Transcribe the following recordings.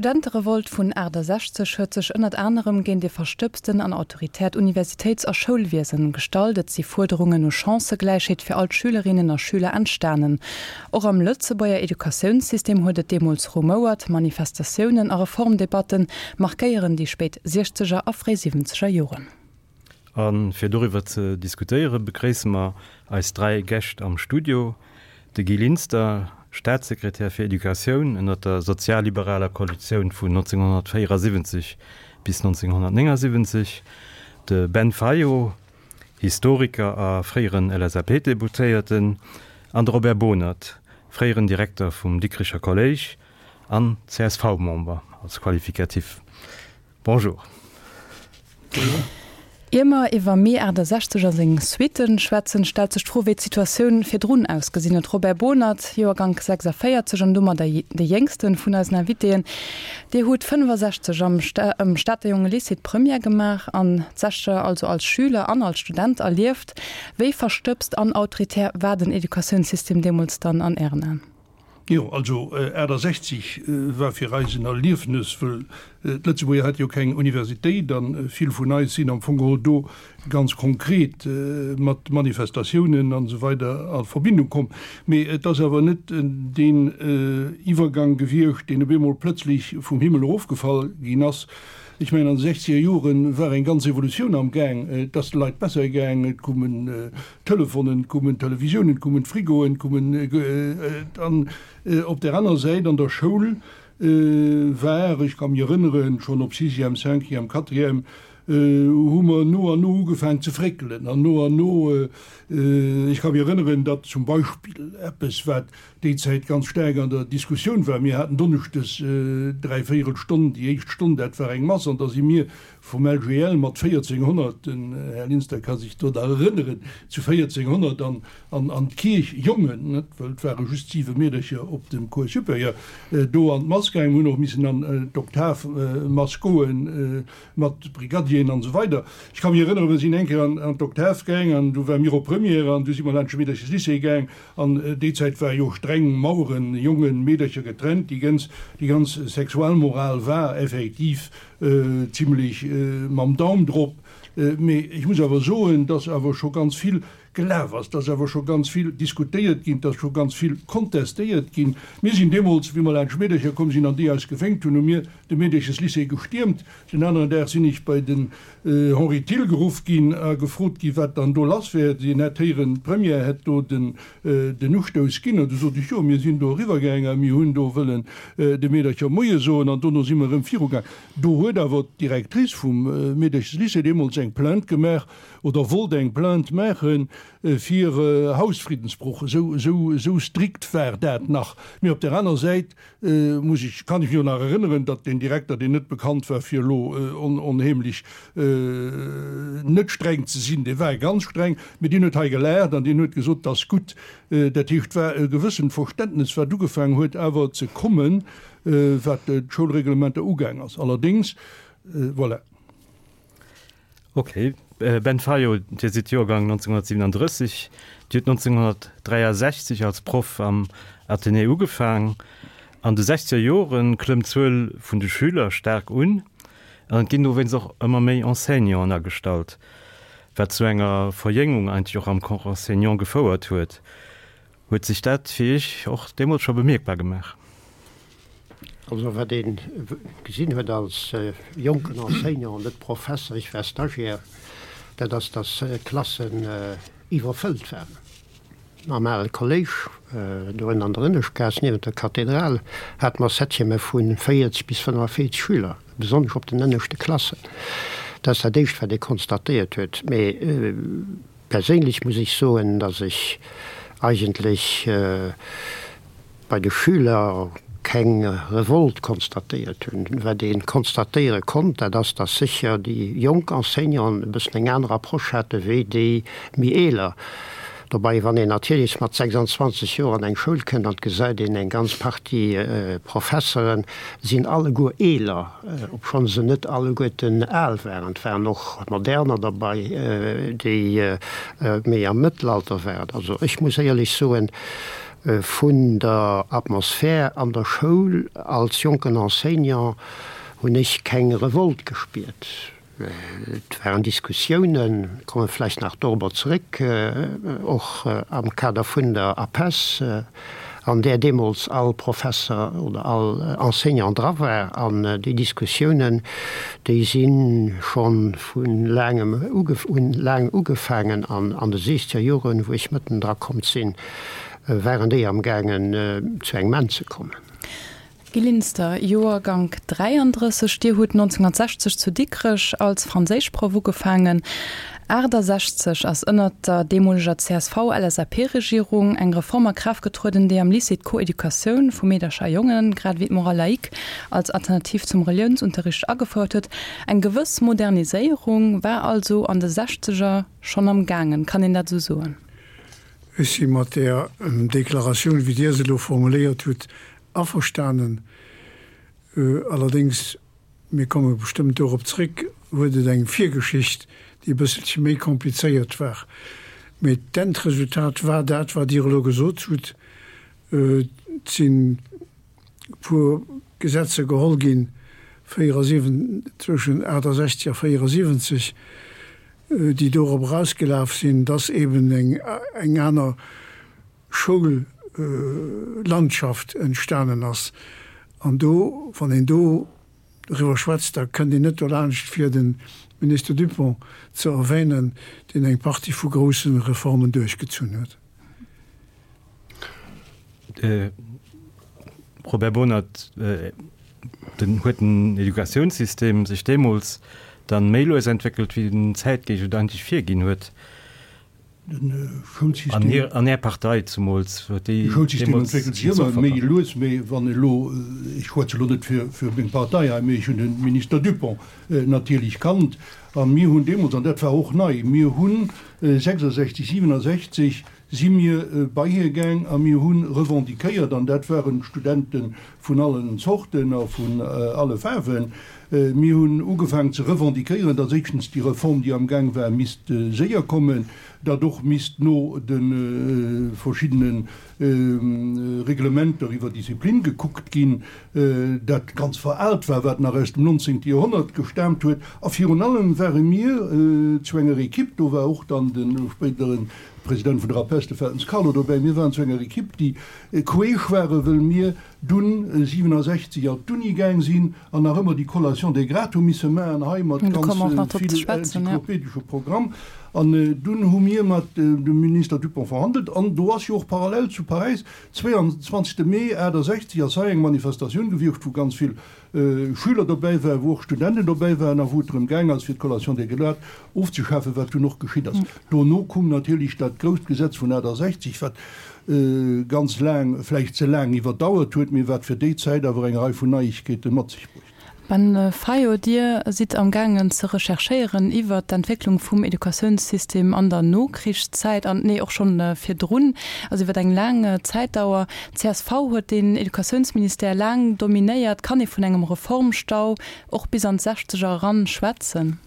D'Studenterevolt vun 68 huet sech ënnert anerem géint ee verstëbsten an autoritäert Universitéits a Schoulwiesen gestallt. Et si Fuerderungen no Chancëgläichheet fir all d'Schülerinnen a Schüler entstanen. Och am Lëtzebuerger Educatiounssystem huet et deemools rumouert. Manifestatiounen a Reformdebatte markéieren déi spéit Siechzeger a fréi Siwwenzeger Joren. A fir doriwwer ze diskutéiere begréisse mer eis 3 Gäscht am Studio, de Guy Linster, Staatssekretär fir Educatioun ënner der sozialliberaler Koalitioun vun 1974 bis 1979, de Ben Fayot, Historiker a fréieren LSAP-Deputéierten, an de Robert Bohnert, fréieren Direkter vum Dikricher Kolléisch an CSV-Member als Qualificatif. Bonjour. Ier mer iwwer Mee 68 a seng Suitten schwätzen, stellt sech d'Fro, wéi d'Situatioun virdrun ausgesinn huet. Robert Bohnert, Joergank 46 an domadder de jéngste vun eisen Invitéen, Dir hutt 65 am Stater Jonge Lycée d'Première gemaach an d'Sechzeger also als Schüler an als Student erlieft. Wéi verstëbst an autoritär war den Educatiounssystem deemools dann an Ären Aen? Jo, also 68 war fir eis en Erliefnes, wëll d'Lëtzebuerger hate jo keng Universitéit a vill vun eis sinn am Fong geholl do ganz konkret mat Manifestatiounen an esou weider a Verbindung komm. Mee et ass awer net deen Iwwergang gewiescht, deen op eemol plëtzlech vum Himmel erofgefall ginn ass. Ech mengen, an de sechzeger Jore war eng ganz Evolutioun am Gaang. Et ass de Leit besser gaang, et koumen Telefonen, et koumen Televisiounen, et koumen Frigoen, et koumen an op där aner Säit an der Schoul war, ech ka mech erënneren, schonn op Sixième, Cinquième, Quatrième, hu mer no an no ugefaang ze fréckelen an no an no, ech ka mech erënneren, datt zum Beispill eppes, wat déi Zäit ganz staark an der Diskussioun war. Mir haten donneschdes dräivéierel Stonn, déi éischt Stonn, dat war eng Mass, an da si mir vum LGL mat 1400, den Här Linster ka sech do nach erënneren, zu 1400 an an d'Kierch, Jongen, net, well et ware just siwe Meedercher op dem Cours supérieur, do an d'Mass gaangen. Mir hunn och missen an d'Oktavmass goen mat Brigadieren an esou weider. Ech ka mech erënneren, mir sinn eng Kéier an d'Oktav gaang an du ware mir op Première an du si mer laanscht de Meedercheslycée gaang An déi Zäit war jo streng Maueren, Jongen, Meedercher getrennt. Déi ganz, déi ganz Sexualmoral war effektiv zimlech mam Daum drop. Mee ech muss awer soen, dass awer scho ganz vill gelaf ass, dass awer scho ganz vill diskutéiert ginn, dass scho ganz vill kontestéiert ginn. Mir sinn deemools, wéi mer laanscht Meedercher komm sinn an déi eis gewénkt hunn, hu mir de Meedercheslycée gestiermt. Den aneren Dag sinn ech bei den Henri Thill geruff ginn a gefrot ginn, wat dann do lass wär. Hien hätt héieren, d'Première hätt do den Ustouss ginn. An du sot ech, jo, mir sinn do eriwwergaang a mir hunn do wëllen de Meedercher Moie soen an dono si mer erëm virugaang. Do huet awer d'Directrice vum Meedercheslycée deemools eng Plainte gemaach oder wollt eng Plainte maache fir Hausfriddensbroch. Esou strikt war dat nach. Mee op där aner Säit Muss ech, kann ech mech och nach erënneren, datt deen Direkter, deen net bekannt war fir elo onheemlech net streng ze sinn, dee war ganz streng, mee deen huet hei gelaacht an deen huet gesot, 't ass gutt. Dat heescht, et war e gewëssent Verständnes, wat ugefaangen huet awer ze kommen, wat d'Schoulreglementer ugaang ass. Allerdéngs, voilà. Ok. Ben Fayot, Dir sidd Joergang 1937. Dir hutt 1963 als Proff am Athenée ugefaang. An de sechzeger Jore klëmmt d'Zuel vun de Schüler staark un an et ginn dowéinst och ëmmer méi Enseignanten agestallt, wat zu enger Verjéngung eigentlech och am Corps enseignant gefouert huet. Huet sech dat fir Iech och deemools scho bemierkbar gemaach? Also wat ee gesinn huet als jonken Enseignant, net Professer, ech war Stagiaire, dat ass, datt d'Klassen iwwerfëllt waren. Am ale Kolléisch, do ënner an der Ënneschtgaass niewent der Kathedral, hate mer Septièmë vu 40 bis 45 Schüler, besonnesch op den ënneschte Klassen. Dat ass dat Éischt, wat ee konstatéiert huet. Mee Perséinlech muss ech soen, dass ech eigentlech bei de Schüler keng Revolt konstatéiert hunn. Wat ee konstatéiere konnt, dat ass, dass sécher déi jonk Enseignanten e bëssen eng aner Approche hate wéi déi méi eeler. Dobei, wann een natierlech mat 26 Joer an eng Schoul kënnt an et gesäit een eng ganz Partie Professeren sinn alleguer eeler, obschonn se net alleguerten al waren, et waren och moderner derbei, déi méi am Mëttelalter waren. Also ech muss éierlech soen. Vun der Atmosphär an der Schoul als jonken Enseignant hunn ech keng Revolt gespiert. Et waren Diskussiounen, komme vläicht nach dorobber zeréck, och am Kader vun der APESS, an där deemools all Professer oder all Enseignant dra war. An déi Diskussiounen, déi si scho vu laangem hunn laang ugefaangen an an de siechzeger Joren, wou ech mëtten dra komm sinn, waren déi amgaangen zu engem Enn ze kommen. Guy Linster, Joergank 33, Dir hutt 1960 zu Dikrech als Franséischproff ugefaangen. 68 ass ënnert der deemoleger CSV-LSAP-Regierung eng Reform a Kraaft getrueden, déi am Lycée d'Coeducatioun vu Meedercher a Jongen, grad ewéi d'Morale laïque als Alternativ zum Reliounsunterricht agefouert huet. Eng gewëss Moderniséierung war also an de Sechzeger schonn am gaangen, kann een dat esou soen? Ech si mat där Deklaratioun, wéi Dir se elo formuléiert hutt, averstanen. Allerdéngs, mir komme bestëmmt dorop zréck, huet et eng Virgeschicht, déi e bësselche méi komplizéiert war. Mee d'Endresultat war dat, wat Dir elo gesot hutt. Et sinn e puer Gesetzer geholl ginn, 74, zwëschen 68 a 74, déi dorop erausgelaf sinn, dass eben eng aner Schoullandschaft entstanen ass. An do, wann een do doriwwer schwätzt, da kënnt een net dolaanscht fir de Minister Dupong ze erwänen, deen eng Partie vu grousse Reformen duerchgezunn huet. Robert Bohnert, Den huet den Educatiounssystem sech deemools dann méi lues entwéckelt, wéi den Zäitgeescht et eigentlech virginn huet? Den Schoulsystem. An Är Partei zumools huet déi. De Schoulsystem entwéckelt sech ëmmer méi lues, mee wann elo, ech schwätze elo net fir fir meng Partei hei, mee ech hunn de Minister Dupong natierlech kannt a mir hunn deemools, an dat war och nei, mir hunn 66, 67 si mir bei hie gaang a mir hu revendiquéiert, an dat waren Studente vun allen Zorten a vun alle Faarwen, mir hunn ugefaangen ze revendiquéieren, datt éischtens déi Reform, déi am Gaang war, misst séier kommen, datt och misst no de verschiddene Reglementer iwwer Disziplin gekuckt ginn, dat ganz veraalt war, wat nach aus dem 19. Joerhonnert gestaamt huet. A virun allem ware mir zu enger Equipe, do war och dann de spéidere President vun der APESS, de Feltens Carlo, dobäi. Mir waren zu enger Equipe, déi queesch waren, wëll mir dunn 67 an d'Uni gaang sinn an nach ëmmer déi Collation des grades hu misse maachen, hei mat ganz vill enzyklopedesche Programm. An dunn hu mir mat dem Minister Dupong verhandelt an do ass jo och parallel zu Paräis, 22 Mee 68 ass hei eng Manifestatioun gewiescht, wou ganz vill Schüler dobäi waren, wou och Studenten dobäi waren a wou et drëm gaang ass, fir d'Collation des grades ofzeschafen, wat dunn och geschitt ass. Dono koum natierlech dat grousst Gesetz vun 68, wat ganz laang, vläicht ze laang iwwerdauert huet, mee wat fir déi Zäit awer eng Rei vun Neiegkeete mat sech bruecht. Ben Fayot, Dir sidd am gaangen ze recherchéieren iwwert d'Entwécklung vum Educatiounssystem an der Nokrichszäit an, nee, och schonn virdrun, also iwwert eng laang Zäitdauer. D'CSV huet den Educatiounsministère laang dominéiert. Kann ee vun engem Reformstau och bis an d'Sechzeger eran schwätzen?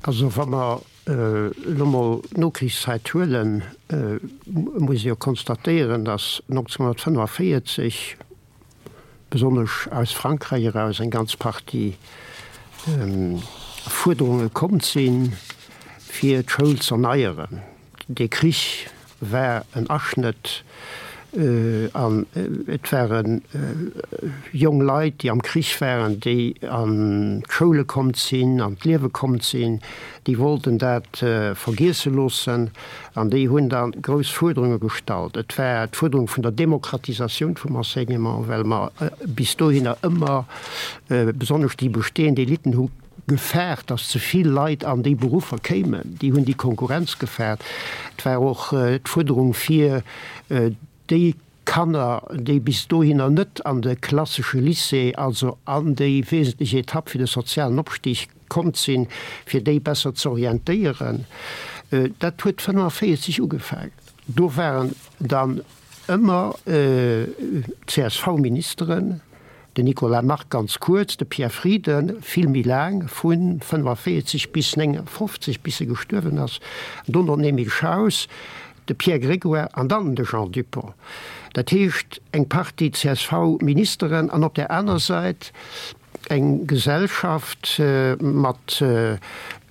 Also wa mer elo mol d'Nokrichszäit huelen, muss ee jo konstatéieren, datt 1945 besonnesch aus Frankräich eraus eng ganz Partie Fuerderunge komm sinn, fir d'Schoul z'erneieren. Dee Krich war en Aschnëtt an et ware jong Leit, déi am Krich waren, déi an d'Schoule komm sinn, an d'Liewe komm sinn, déi wollten dat vergiesse loossen an déi hunn da grouss Fuerderunge gestallt. Et war d'Fuerderung vun der Demokratisatioun vum Enseignement, well mer bis dohinner ëmmer, besonnesch déi bestehend Eliten hu gefaart, datt ze vill Leit an déi Beruffer kéimen. Déi hunn déi Konkurrenz gefaart. Et war och d'Fuerderung fir déi Kanner, déi bis dohinner net an de klassesche Lycée, also an déi wesentlech Etapp fir de sozialen Opstig komm sinn, fir déi besser ze orientéieren. Dat huet 45 ugefaangen. Do waren dann ëmmer CSV-Ministeren, Den Nicolas Margue ganz kuerz, de Pierre Frieden vill méi laang, vu 45 bis 59, bis e gestuerwen ass, an dono den Emile Schaus. De Pierre Grégoire an dann de Jean Dupong. Dat heescht eng Partie CSV-Ministeren an op där aner Säit eng Gesellschaft mat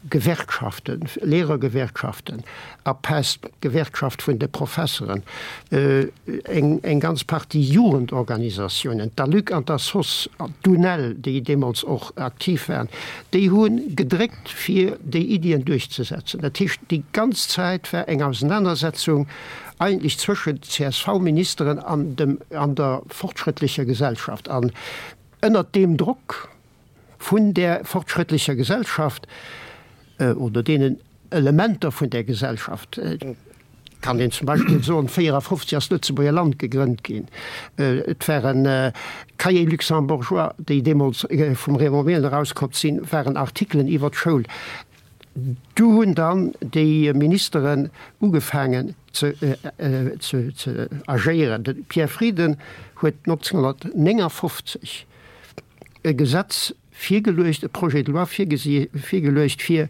Gewerkschaften, Lehrergewerkschaften, APEST, d'Gewerkschaft vun de Professeren, eng ganz Partie Jugendorganisatiounen, d'ALUC an d'ASOS, d'UNEL, déi deemools och aktiv waren, déi hu gedréckt fir déi Iddien duerchzesetzen. Dat heescht, déi ganz Zäit war eng Ausenanersetzung eigentlech zwëschent CSV-Ministeren an dem, an der fortschrëttlecher Gesellschaft. An Ënnert deem Drock vun där fortschrëttlecher Gesellschaft oder deenen Elementer vun där Gesellschaft, kann een zum Beispill soen, 54 ass d'Lëtzebuerger Land gegrënnt ginn, et waren Cahiers luxembourgeois, déi deemools vum Raymond Mehlen erauskomm sinn, waren Artikelen iwwer d'Schoul. Du hunn dann déi Ministeren ugefaangen ze agéieren. De Pierre Frieden huet 1959 e Gesetz virgeluecht, e Projet de loi virgeluecht, fir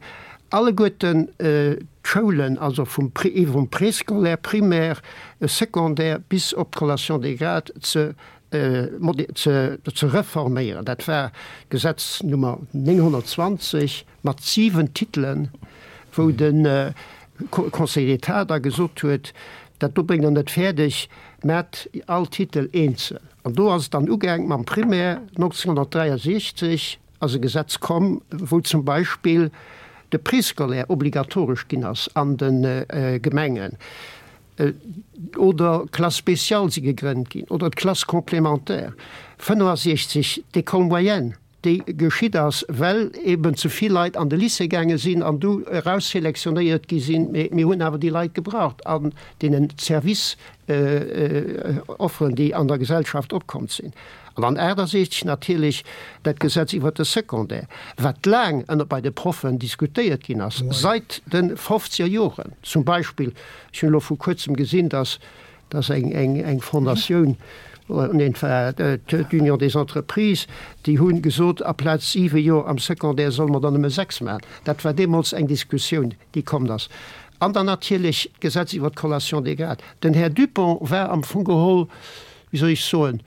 alleguerten d'Schoulen, also vum Préscolaire, Primaire, Secondaire bis op d'Collation des grades ze reforméieren. Dat war d'Gesetz Nummer 920. mat 7 Titelen, wou de Conseil d'État da gesot huet, dat do bréngt Der net fäerdeg, maacht all Titel eenzel. An do ass et dann ugaang mam Primaire. 1963 ass e Gesetz komm, wou zum Beispill de Préscolaire obligatoresch ginn ass an de Gemengen, oder Classes spéciales si gegrënnt ginn, oder d'Classes complémentaires, 65 d'École moyenne. déi geschitt ass, well eben ze vill Leit an de Lycée gaange sinn an du erausselektionéiert gi sinn. Mee mir hunn awer déi Leit gebraucht an deenen Service-Offeren, déi an der Gesellschaft opkomm sinn. An dann 68 natierlech dat Gesetz iwwert de Secondaire, wat laang ënner bei de Proffen diskutéiert ginn ass, seit de fofzeger Joren. Zum Beispill, ech hunn elo vu kuerzem gesinn, dass Dat ass eng Fondatioun, nee, et war d'Union des Entreprises, déi hu gesot, aplaz siwe Joer am Secondaire solle mer der nëmme sechs maachen. Dat war deemools eng Diskussioun, déi komm ass. An dann natierlech d'Gesetz iwwert d'Collation des grades. Den Här Dupong war am Fong geholl, wéi soll ech soen,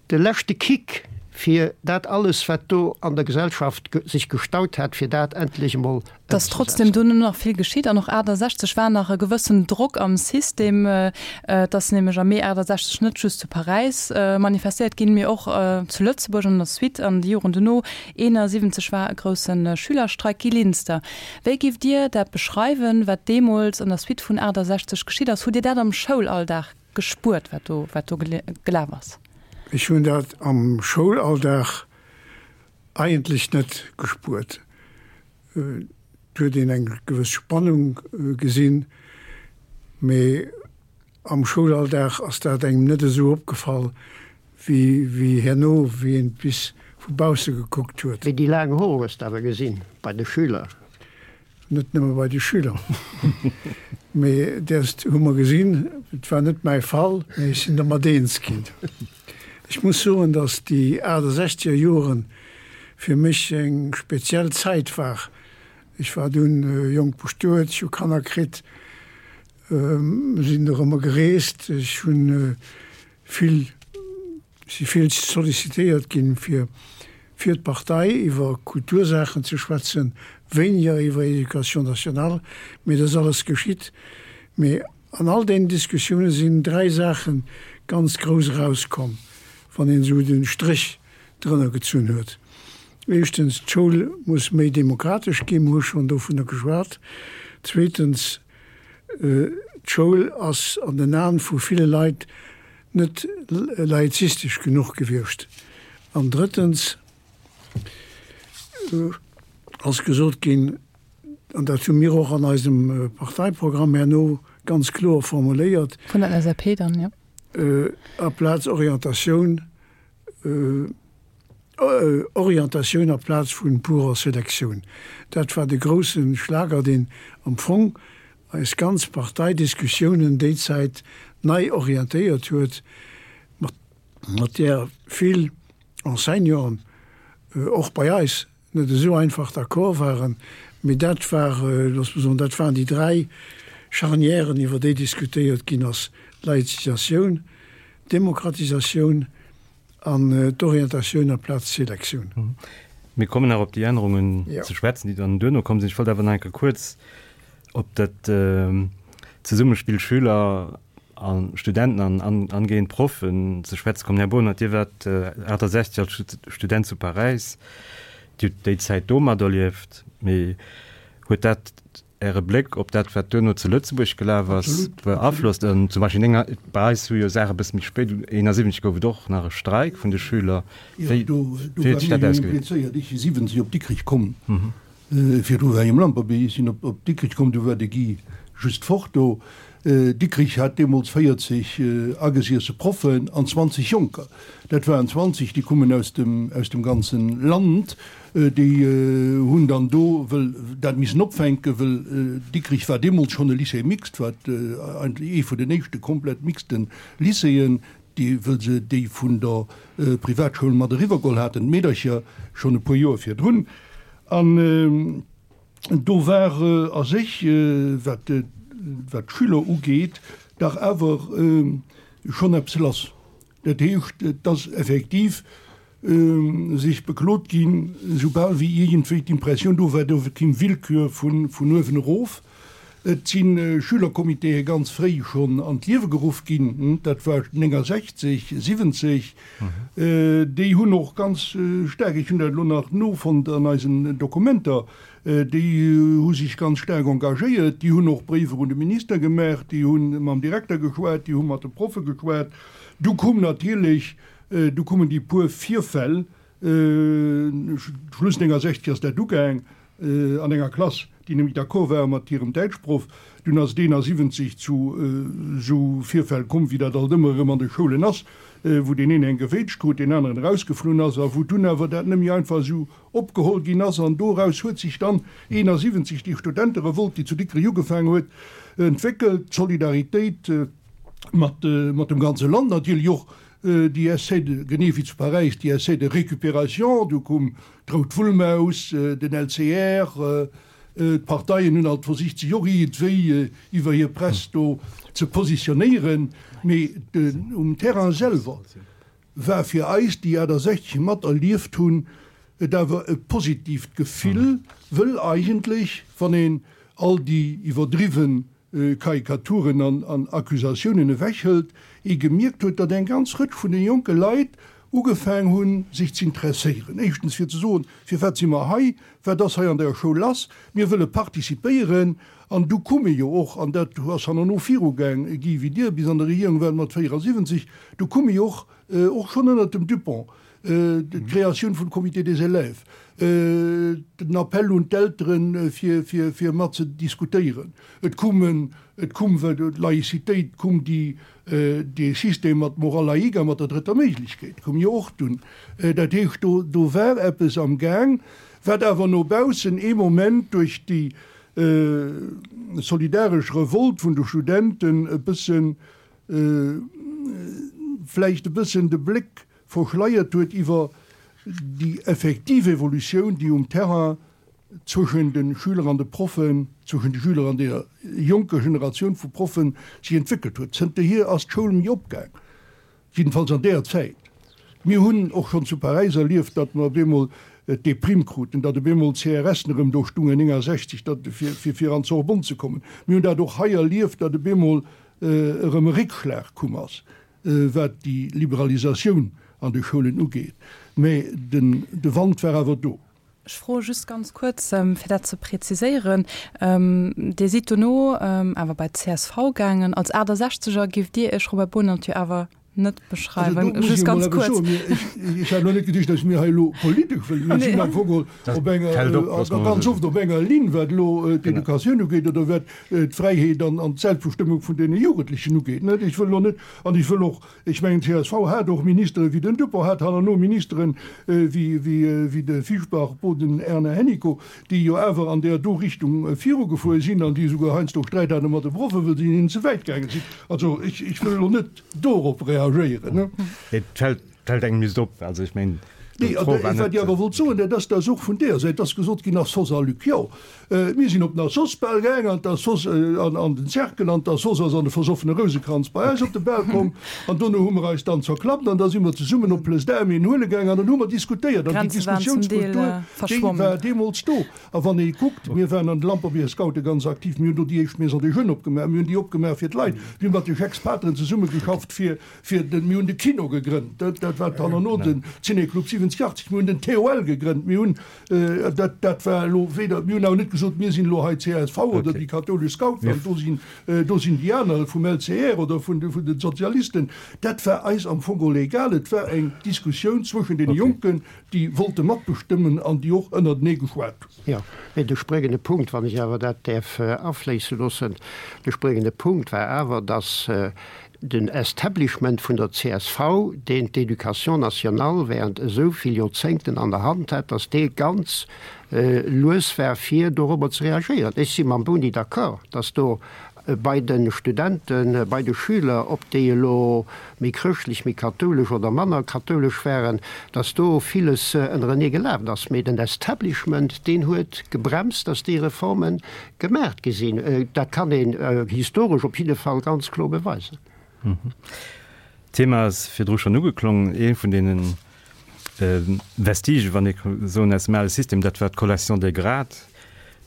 De leschte Kick, fir dat alles, wat do an der Gesellschaft sech gestaut hat, fir dat endlech emol Et ass trotzdem ëmzesetzen. dunn nach vill geschitt an och 68 war nach e gewëssen Drock am System. Et ass nämlech am Mee 68 net just zu Paräis manifestéiert ginn, mee och zu Lëtzebuerg an der Suite an de Joren dono. 71 war e grousse Schülerstreik. Guy Linster, wéi giff Dir dat beschreiwen, wat deemools an der Suite vun 68 geschitt ass? Hutt Dir dat am Schoulalldag gespuert, wat do, wat do gelaf ass? Ech hunn dat am Schoulalldag eigentlech net gespuert. Et huet een eng gewëss Spannung gesinn, mee am Schoulalldag ass dat engem net esou opgefall wéi, wéi herno, wéi een et bis vu bausse gekuckt huet. Mee déi laang Hoer hues de awer gesinn bei de Schüler. Net nëmme bei de Schüler, mee däerst hu mer gesinn, et war net mäi Fall, mee ech sinn dermat eens ginn. Ech muss soen, datt déi 68er Jore fir mech eng speziell Zäit war. Ech war dunn jonk bestuet, ech hu Kanner kritt, sinn dorëmmer gereest, ech hunn vill Si vill sollicitéiert ginn, fir fir d'Partei iwwer Kultursaachen ze schwätzen, wéiniger iwwer Éducation nationale, mee dat ass alles geschitt. Mee an all deenen Diskussioune sinn dräi Saache ganz grouss erauskomm, wann een esou de Stréch drënner gezunn huet. Éischtens, d'Schoul muss méi demokratesch ginn, mir hu schonn dovunner geschwat. Zweetens, d'Schoul ass an den Aen vu ville Leit net laizistesch genuch gewiescht. An drëttens ass gesot ginn, an dat hu mir och an eisem Parteiprogramm herno ganz kloer formuléiert, Vun der LSAP dann, jo. Aplaz Orientatioun, Orientatioun aplaz vu purer Selektioun. Dat war de grousse Schlager, deen am Fong eis ganz Parteidiskussiounen déi Zäit nei orientéiert huet, mat där vill Enseignanten och bei eis net esou einfach d'accord waren. Mee dat war, looss mer soen, dat waren déi dräi. Charnièren, iwwer déi diskutéiert ginn ass, Laïzisatioun, Demokratisatioun an d'Orientatioun amplaz d'Selektioun. Mir kommen nach op déi Ännerungen ze schwätzen, déi dann duerno komm sinn. Ech wollt awer nach eng Kéier kuerz op dat Zesummespill Schüler a Studenten an angehend Proffen ze schwätze kommen. Här Bohnert, Dir waart 68 als Student zu Paräis. Dir hutt déi Zäit do materlieft. Mee huet dat Äre Bléck op dat, wat duerno zu Lëtzebuerg gelaf ass, beaflosst? Zum Beispill enger, bei eis hu jo Saache e bësse méi spéit, 71 gouf et och nach e Streik vun de Schüler. Wéi huet sech dat ausgewierkt? Ech si 70 op Dikrech komm. Virdru war ech um Lamperbier. Ech sinn op Dikrech komm, du war de Guy just fort do. Dikrich hat deemools 40 agesiesse Proffen an 20 Jonker. Dat waren 20, déi kummen aus dem, aus dem ganzen Land. Déi hunn dann do wëll dat missen opfänken, wëll Dikrich war deemools schonn e Lycée mixte, wat eigentlech ee vun den éischte komplett mixten Lycéeën, déi, wëll se déi vun der Privatschoul mat eriwwergeholl haten, d'Meedercher schonn e puer Joer virdrun. An do war a sech, wat d'Schüler ugeet, dach awer schonn eppes lass. Dat heescht, et ass effektiv sech beklot ginn, soubal wéi iergendwéi d'Impressioun do war, do kéim Willkür vun uewen erof. Et si Schülercomitéë ganz fréi schonn an d'Liewe geruff ginn, dat war 69, 70. Déi hunn och ganz staark, ech hunn dat elo nach nofonnt an eisen Dokumenter, déi hu sech ganz staark engagéiert, déi hunn och Bréiwer un de Minister gemaach, déi hu mam Direkter geschwat, déi hu mat de Proffe geschwat. Du koum natierlech, du koumen déi puer Virfäll, Schluss 69 ass dat ugaang, an enger Klass, déi nemmi d'accord ware mat hirem Däitschproff. Dunn ass et 71 zu esou Virfäll komm, wéi dat alt ëmmer erëm an de Schoulen ass, wou deen een eng gewéitscht krut, deen aneren erausgeflunn ass a wou dunn awer dat nemmi einfach esou opgeholl ginn ass. An doraus huet sech dann 71 déi Studenterevolt, déi zu Dikrech ugefaangen huet, entwéckelt, d'Solidaritéit mat dem ganze Land natierlech och, déi Essais de, genee wéi zu Paräis, déi Essais de récupération, du koum D'Rout Wullmaus, den LCR, d'Parteien hunn alt versicht sech och iergendwéi iwwer hir Press do ze positionéieren, mee um Terrain selwer war fir eis, déi 68 mat erlieft hunn, et awer e positiivt Gefill, wëll eigentlech, wann een all déi iwwerdriwwen Karikaturen an Accusatiounen ewechhëlt, ee gemierkt huet, datt eng ganz Rëtsch vun de jonke Leit ugefaang hunn, sech z'interesséieren. Éischtens fir ze soen, Firwat si mer hei? Wat ass hei an der Schoul lass? Mir wëlle participéieren. An du kumme jo och, an dat ass hannerno virugaang, Guy, wéi Dir bis an der Regierung waart mat 74, du kumme jo och, och schonn ënnert dem Dupong, d'Kreatioun vum Comité des élèves, den Appel un d'Elteren, fir mat ze diskutéieren. Et kumen, et kum d'Laïcitéit, kum déi, dee System mat Morale laïque a mat der drëtter Méiglechkeet kum jo och dunn. Dat heescht, do, do war eppes am Gaang, wat awer no baussen ee Moment duerch déi solidaresch Revolte vun de Studenten e bëssen, vläicht e bëssen de Bléck verschleiert huet iwwer déi effektiv Evolutioun, déi um Terrain zwëschen de Schüler an de Proffen, zwëschen de Schüler an deer jonker Generatioun vu Proffen sech entwéckelt huet. Zënterhier ass d'Schoul méi opgaang, jiddefalls an deer Zäit. Mir hunn och schonn zu Paräis erlieft, datt mer op eemol d'Deprime kruten, datt op eemol d'CRSen erëm do stungen, 69, datt, fir, fir an d'Sorbonne ze kommen. Mir hunn dat och hei erlieft, datt op eemol erëm e Réckschlag komm ass, wat déi Liberalisatioun an de Schoulen ugeet. Mä den, de Wand war awer do. Ech froe just ganz kuerz, fir dat ze preziséieren, Dir sidd dono awer bei d'CSV gaangen. Als 68er giff Dir Iech, Robert Bohnert, jo awer net beschreiwen. Just ganz kuerz. Ech hat elo net geduecht, datt mir hei elo politesch wëllen. Mir sinn am Fong geholl op enger, ganz oft op enger Linn, wat elo d'Educatioun ugeet oder wat d'Fräiheet an d'Selbstbestëmmung vun deene Jugendlechen ugeet. Ech wëll elo net, an ech wëll och Ech mengen, csv hat och Ministere wéi den Dupong, hat hannerno Ministere wéi de Fischbach, Boden, Erna Hennicot, déi jo awer an där do Richtung virugefuer sinn an déi esouguer heiansdo Sträit hate mat de Proffen, wëll se hinnen ze wäit gaange sinn. Also ech wëll elo net dorop reagéieren. Et fält engem just op, also ech mengen. Nee, D'Fro war wat net. Ech awer wollt soen, dat ass, dass och vun deeër Säit ass gesot ginn, Assos a Luc, jo, mir sinn op den Assos-Bal gaang an d'Assos, an an den Cercle, an d'Assos ass an de versoffene Rousekranz bei eis op de Bal komm an dono hu mer eis dann zerklappt an da si mer zesummen op Plëss d'Armée en huele gaang an dann hu mer diskutéiert an déi D'Grenze waren zum Deel Diskussiounskultur, déi verschwommen. war deemools do. A wann ee kuckt, mir waren an de Lamperbier Scoute ganz aktiv, mir hunn do déi éischt Maison des Jeunes opgemaach, mir hunn déi opgemaach fir d'Leit, mir hu mat de Jacques-Pateren zesummegeschafft fir, fir den, mir hunn de Kino gegrënnt, dat, dat war herno den Ciné-Club 70, 80, mir hunn den TOL gegrënnt, mir hunn, dat, dat war elo weder, mir hunn awer net gesot, mir sinn elo hei csv oder déi kathoulesch Scouten an do sinn, do sinn déi aner vum LCR oder vun de, vun den Sozialisten. Dat war eis am Fong geholl egal. Et war eng Diskussioun zwëschen deene Jonken, déi wollte matbestëmmen an déi och ënnertenee geschwat hunn. Jo, mee de spréngende Punkt, wann ech awer dat däerf afléisse loossen, de spréngende Punkt war awer, dass den Establishment vun der csv, deen d'Éducation nationale während esou vill Joerzéngten an der Hand hat, dass dee ganz lues war fir dorobber ze reagéieren. Ech si mam Boni d'accord, dass do bei de Studenten, bei de Schüler, ob déi elo méi chrëschtlech, méi kathoulesch oder manner kathoulesch waren, dass do villes ënnerenee gelaf ass. Mee den Establishment, deen huet gebremst, dass déi Reforme gemaacht gi sinn. Dat kann een historesch op jidde Fall ganz kloer beweisen. D'Thema ass virdru schonn ugeklongen. Ee vun deene Vestigen, wann ee ka soen, aus dem ale System, dat war d'Collation des grades.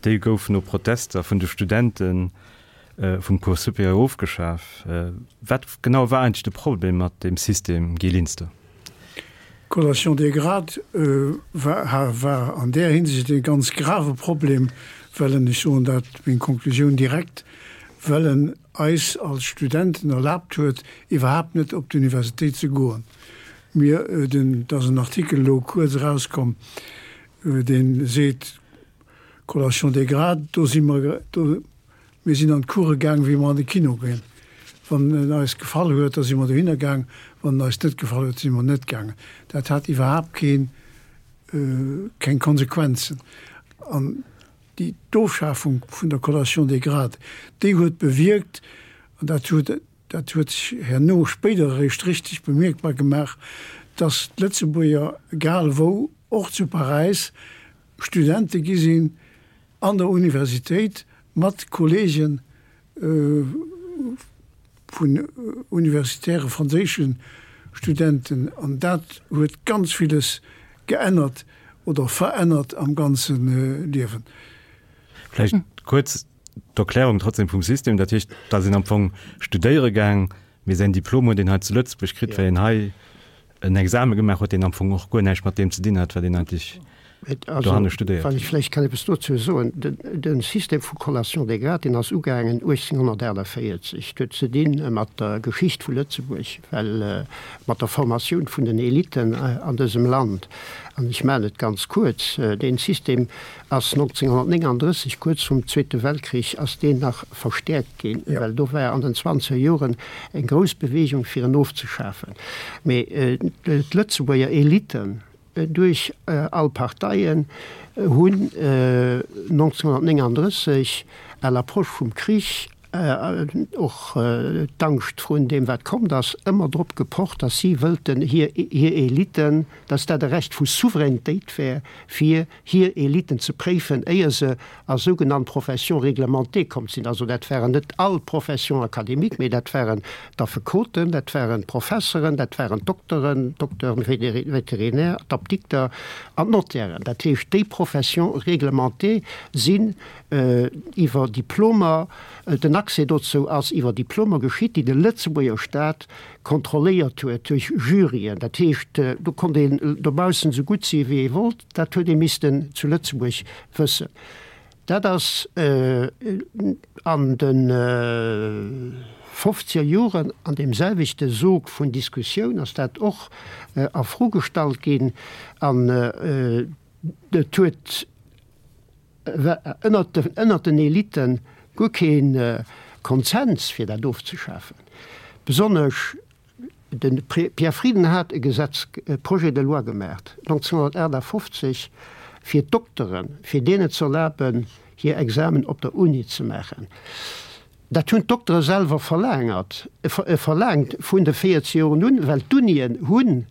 Déi gouf no Protester vun de Studente vum Cours supérieur ofgeschaf. Wat genau war eigentlech de Problem mat deem System, Guy Linster? D'Collation des grades war an där Hinsicht e ganz grave Problem, well en, ech soen dat, meng Konklusioun direkt, well en eis als Studenten erlaabt huet, iwwerhaapt net op d'Universitéit ze goen. Mir, den, et ass en Artikel elo kuerz erauskomm, dee seet, Collation des grades, do si mer, do, mir sinn an d'Course gaang, wéi mer an de Kino ginn. Wann en eis gefall huet, da si mer dohinner gaang, wann en eis net gefall huet, si mer net gaangen. Dat hat iwwerhaapt keen, keng Konsequenzen. An déi, d'Ofschafung vun der Collation des grades, déi huet bewierkt, an dat huet, Dat huet sech herno spéider eréischt richteg bemierkbar gemaach, datt d'Lëtzebuerger, egal wou, och zu Paräis, Studente gi sinn an der Universitéit mat Kollege vun universitäre franséische Studenten. An dat huet ganz villes geännert oder verännert am ganze Liewen. Vläicht kuerz d'Erklärung trotzdem vum System, dat heescht, da sinn am Fong studéiere gaang, mee säin Diplom huet een hei zu Lëtzebuerg kritt, well een hei en Exame gemaach huet, deen am Fong och guer näischt mat deem ze dinn hat, wat een eigentlech dohanne studéiert Wann ech huet. vläicht kann eppes dozou soen, De System vu Collation des grades, deen ass ugaangen 1848. Dat huet ze di mat der Geschicht vu Lëtzebuerg, well mat der Formatioun vun den Eliten an dësem Land. An ech maachen et ganz kuerz, Dee System ass 1939, kuerz vum Zweete Weltkrich, ass deen nach verstäerkt ginn, well do war an den zwanzeger Joren eng grouss Bewegung fir en ofzeschafen. Mee d'Lëtzebuerger Eliten duerch all Parteien hunn 1939 à l'approche vum Krich, och d'Angscht vrun deem wat kommt ass, ëmmer drop gepocht, datt si wëllten hir Eliten, datt dat e Recht vu Souveränitéit wär, fir hir Eliten ze préifen, éier se a sougenannt Professions réglementées komm sinn. Also dat waren net all Professions académiques, mee dat waren d'Affekoten, dat waren d'Professeren, dat waren d'Dokteren, d'Docteurs vétérinaires, d'Apdikter an d'Notairen. Dat heescht, déi Professions réglementées sinn iwwer Diplomer, den Accès dozou ass iwwer Diplomer geschitt, déi de Lëtzebuerger Staat kontrolléiert huet duerch Juryen. Dat heescht, do konnt een dobaussen esou gutt si wéi ee wollt, dat huet ee missten zu Lëtzebuerg wëssen. Dat ass an de fofzeger Joren an deem selwechte Sog vun Diskussioun ass dat och a Fro gestallt ginn an et huet, ënnert den Elite guer kee Konsens fir dat ofzeschafen. Besonnesch de Pierre Frieden hat e Gesetz, e Projet de loi gemaacht 1958 fir d'Dokteren, fir deenen ze erlaben hir Examen op der Uni ze maachen. Dat hunn d'Doktere selwer verlaangert, verlaangt vun de 40 Joren un, well d'Unien hunn.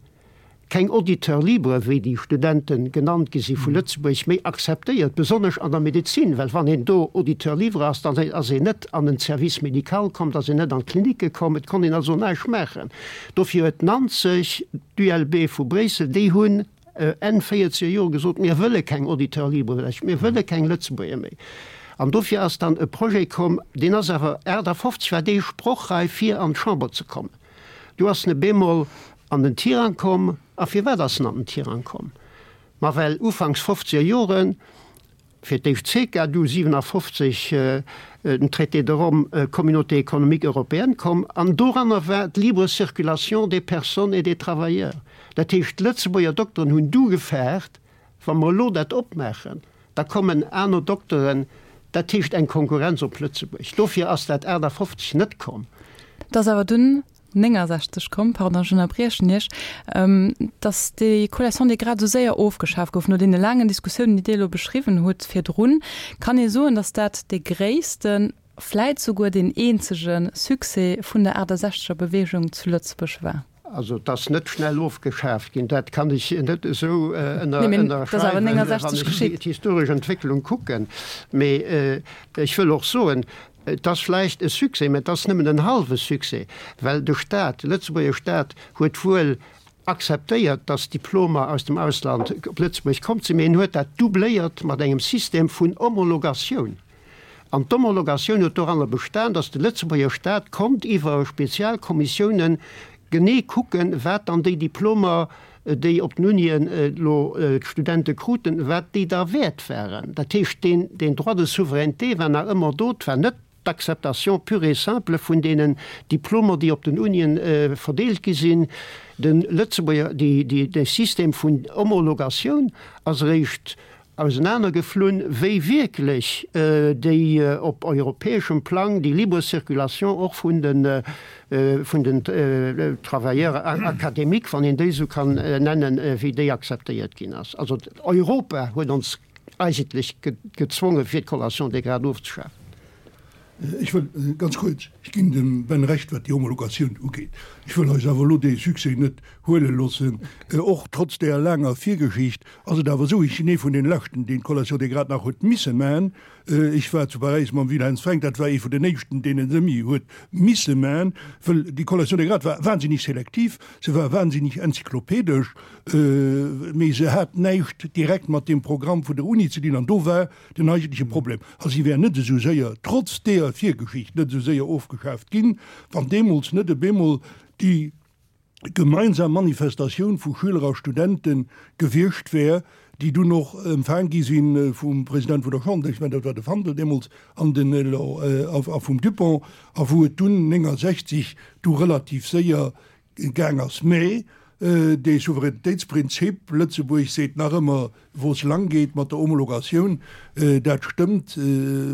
Keng Auditeurs libres, wéi déi Studente genannt gi si vu Lëtzebuerg, méi akzeptéiert, besonnesch an der Medezin, well wann een do Auditeur libre ass, dann ass een net an den Service médical komm, da ass een net an d'Klinicke komm, et konnt een also näischt maachen. Dofir huet 90 d'ULB vu Bréissel, déi hunn Enn véierzeger Jore gesot, mir wëlle keng Auditeurs libres, mir wëlle keng Lëtzebuerger méi. An dofir ass dann e Projet komm, deen ass awer 58 war dee sprochreif fir an d'Chamber ze kommen. Du ass en e bemol an den Tirang komm. A firwat ass en an den Tirang komm? Ma well ufanks fofzeger Joren fir d'éischt d'CECA, du 57 den Traité de Rome, Communauté économique européenne, komm an doranner war d'libre circulation des personnes et des travailleurs. Dat heescht, d'Lëtzebuerger Dokteren hunn du gefaart, Wa mer elo dat opmaachen, da kommen aner Dokteren, dat heescht eng Konkurrenz op Lëtzebuerg. Dofir ass dat 58 net komm. Et ass awer dunn 69 komm, pardon, ech ënnerbriechen Iech, datt déi Collation des grades esou séier ofgeschaf gouf, no deene laangen Diskussiounen, déi Dir elo beschriwwen hutt virdrun. Kann ee soen, datt dat dee gréissten, vläit souguer deen eenzege Succès vun der 68er Beweegung zu Lëtzebuerg war? Also et ass net schnell ofgeschaaft ginn, dat kann ech net esou ënnerschreiwen, wann ech d'historesch Entwécklung kucken. Mee ech wëll och soen, et ass vläicht e Succès, mä et ass nëmmen en hallwe Succès, well de Stat, de Lëtzebuerger Stat huet wuel akzeptéiert, datt Diplomer aus dem Ausland op Lëtzebuerg komm sinn, mee en huet dat doubléiert mat engem System vun Homologatioun. An d'Homologatioun huet doranner bestan, datt de Lëtzebuerger Staat konnt iwwer Spezialkommissiounen genee kucken, wat dann déi Diplomer, déi op den Unien elo d'Studente kruten, wat déi da wäert waren. Dat heescht, deen, deen Droit de souveraineté war nach ëmmer do. Et war net d'Acceptation pure et simple vun deenen Diplomer, déi op den Unien verdeelt gi sinn. De Lëtzebuerger, déi, déi, dee System vun Homologatioun ass eréischt ausenanergeflunn, wéi wierklech déi op europäeschem Plang déi libre circulation och vun de vun den Travailleurs académiques, wann een déi esou kann nennen, wéi déi akzeptéiert ginn ass. Also Europa huet ons eigentlech gezwongen, fir d'Collation des grades ofzeschafen. Ech wëll ganz kuerz, ech ginn dem Ben Recht, wat déi Homologatioun ugeet. Ech wëll eis awer elo dee Succès net huele loossen. Och trotz deeër laanger Virgeschicht ass et awer esou, ech sinn ee vun deene Leschten, deen d'Collation des grades nach huet misse man. Ech war zu Paräis mam Wilhelm Frank, dat war ee vun den éischten, deen en semi huet misse man, wëll déi Collation des grades war wahnsinnig selektiv, se war wahnsinnig enzyklopedesch, mee se hat näischt direkt mat deem Programm vun der Uni ze dinn. An do war Den eigentleche Problem, a si wär net esou séier, trotz deeër Virgeschicht, net esou séier ofgeschaaft ginn, wann deemools net op eemol déi gemeinsam Manifestatioun vu Schüler a Studente gewiescht wär, déi dunn och empfaang gi si vum President vun der Chambre, ech mengen dat war de Fandel deemools, an den a vum Dupong, a wou et dunn 69 du relativ séier gaang ass. Mä dee Souveränitéitsprinzip, Lëtzebuerg seet nach ëmmer, wou es lang geet mat der Homologatioun, dat stëmmt,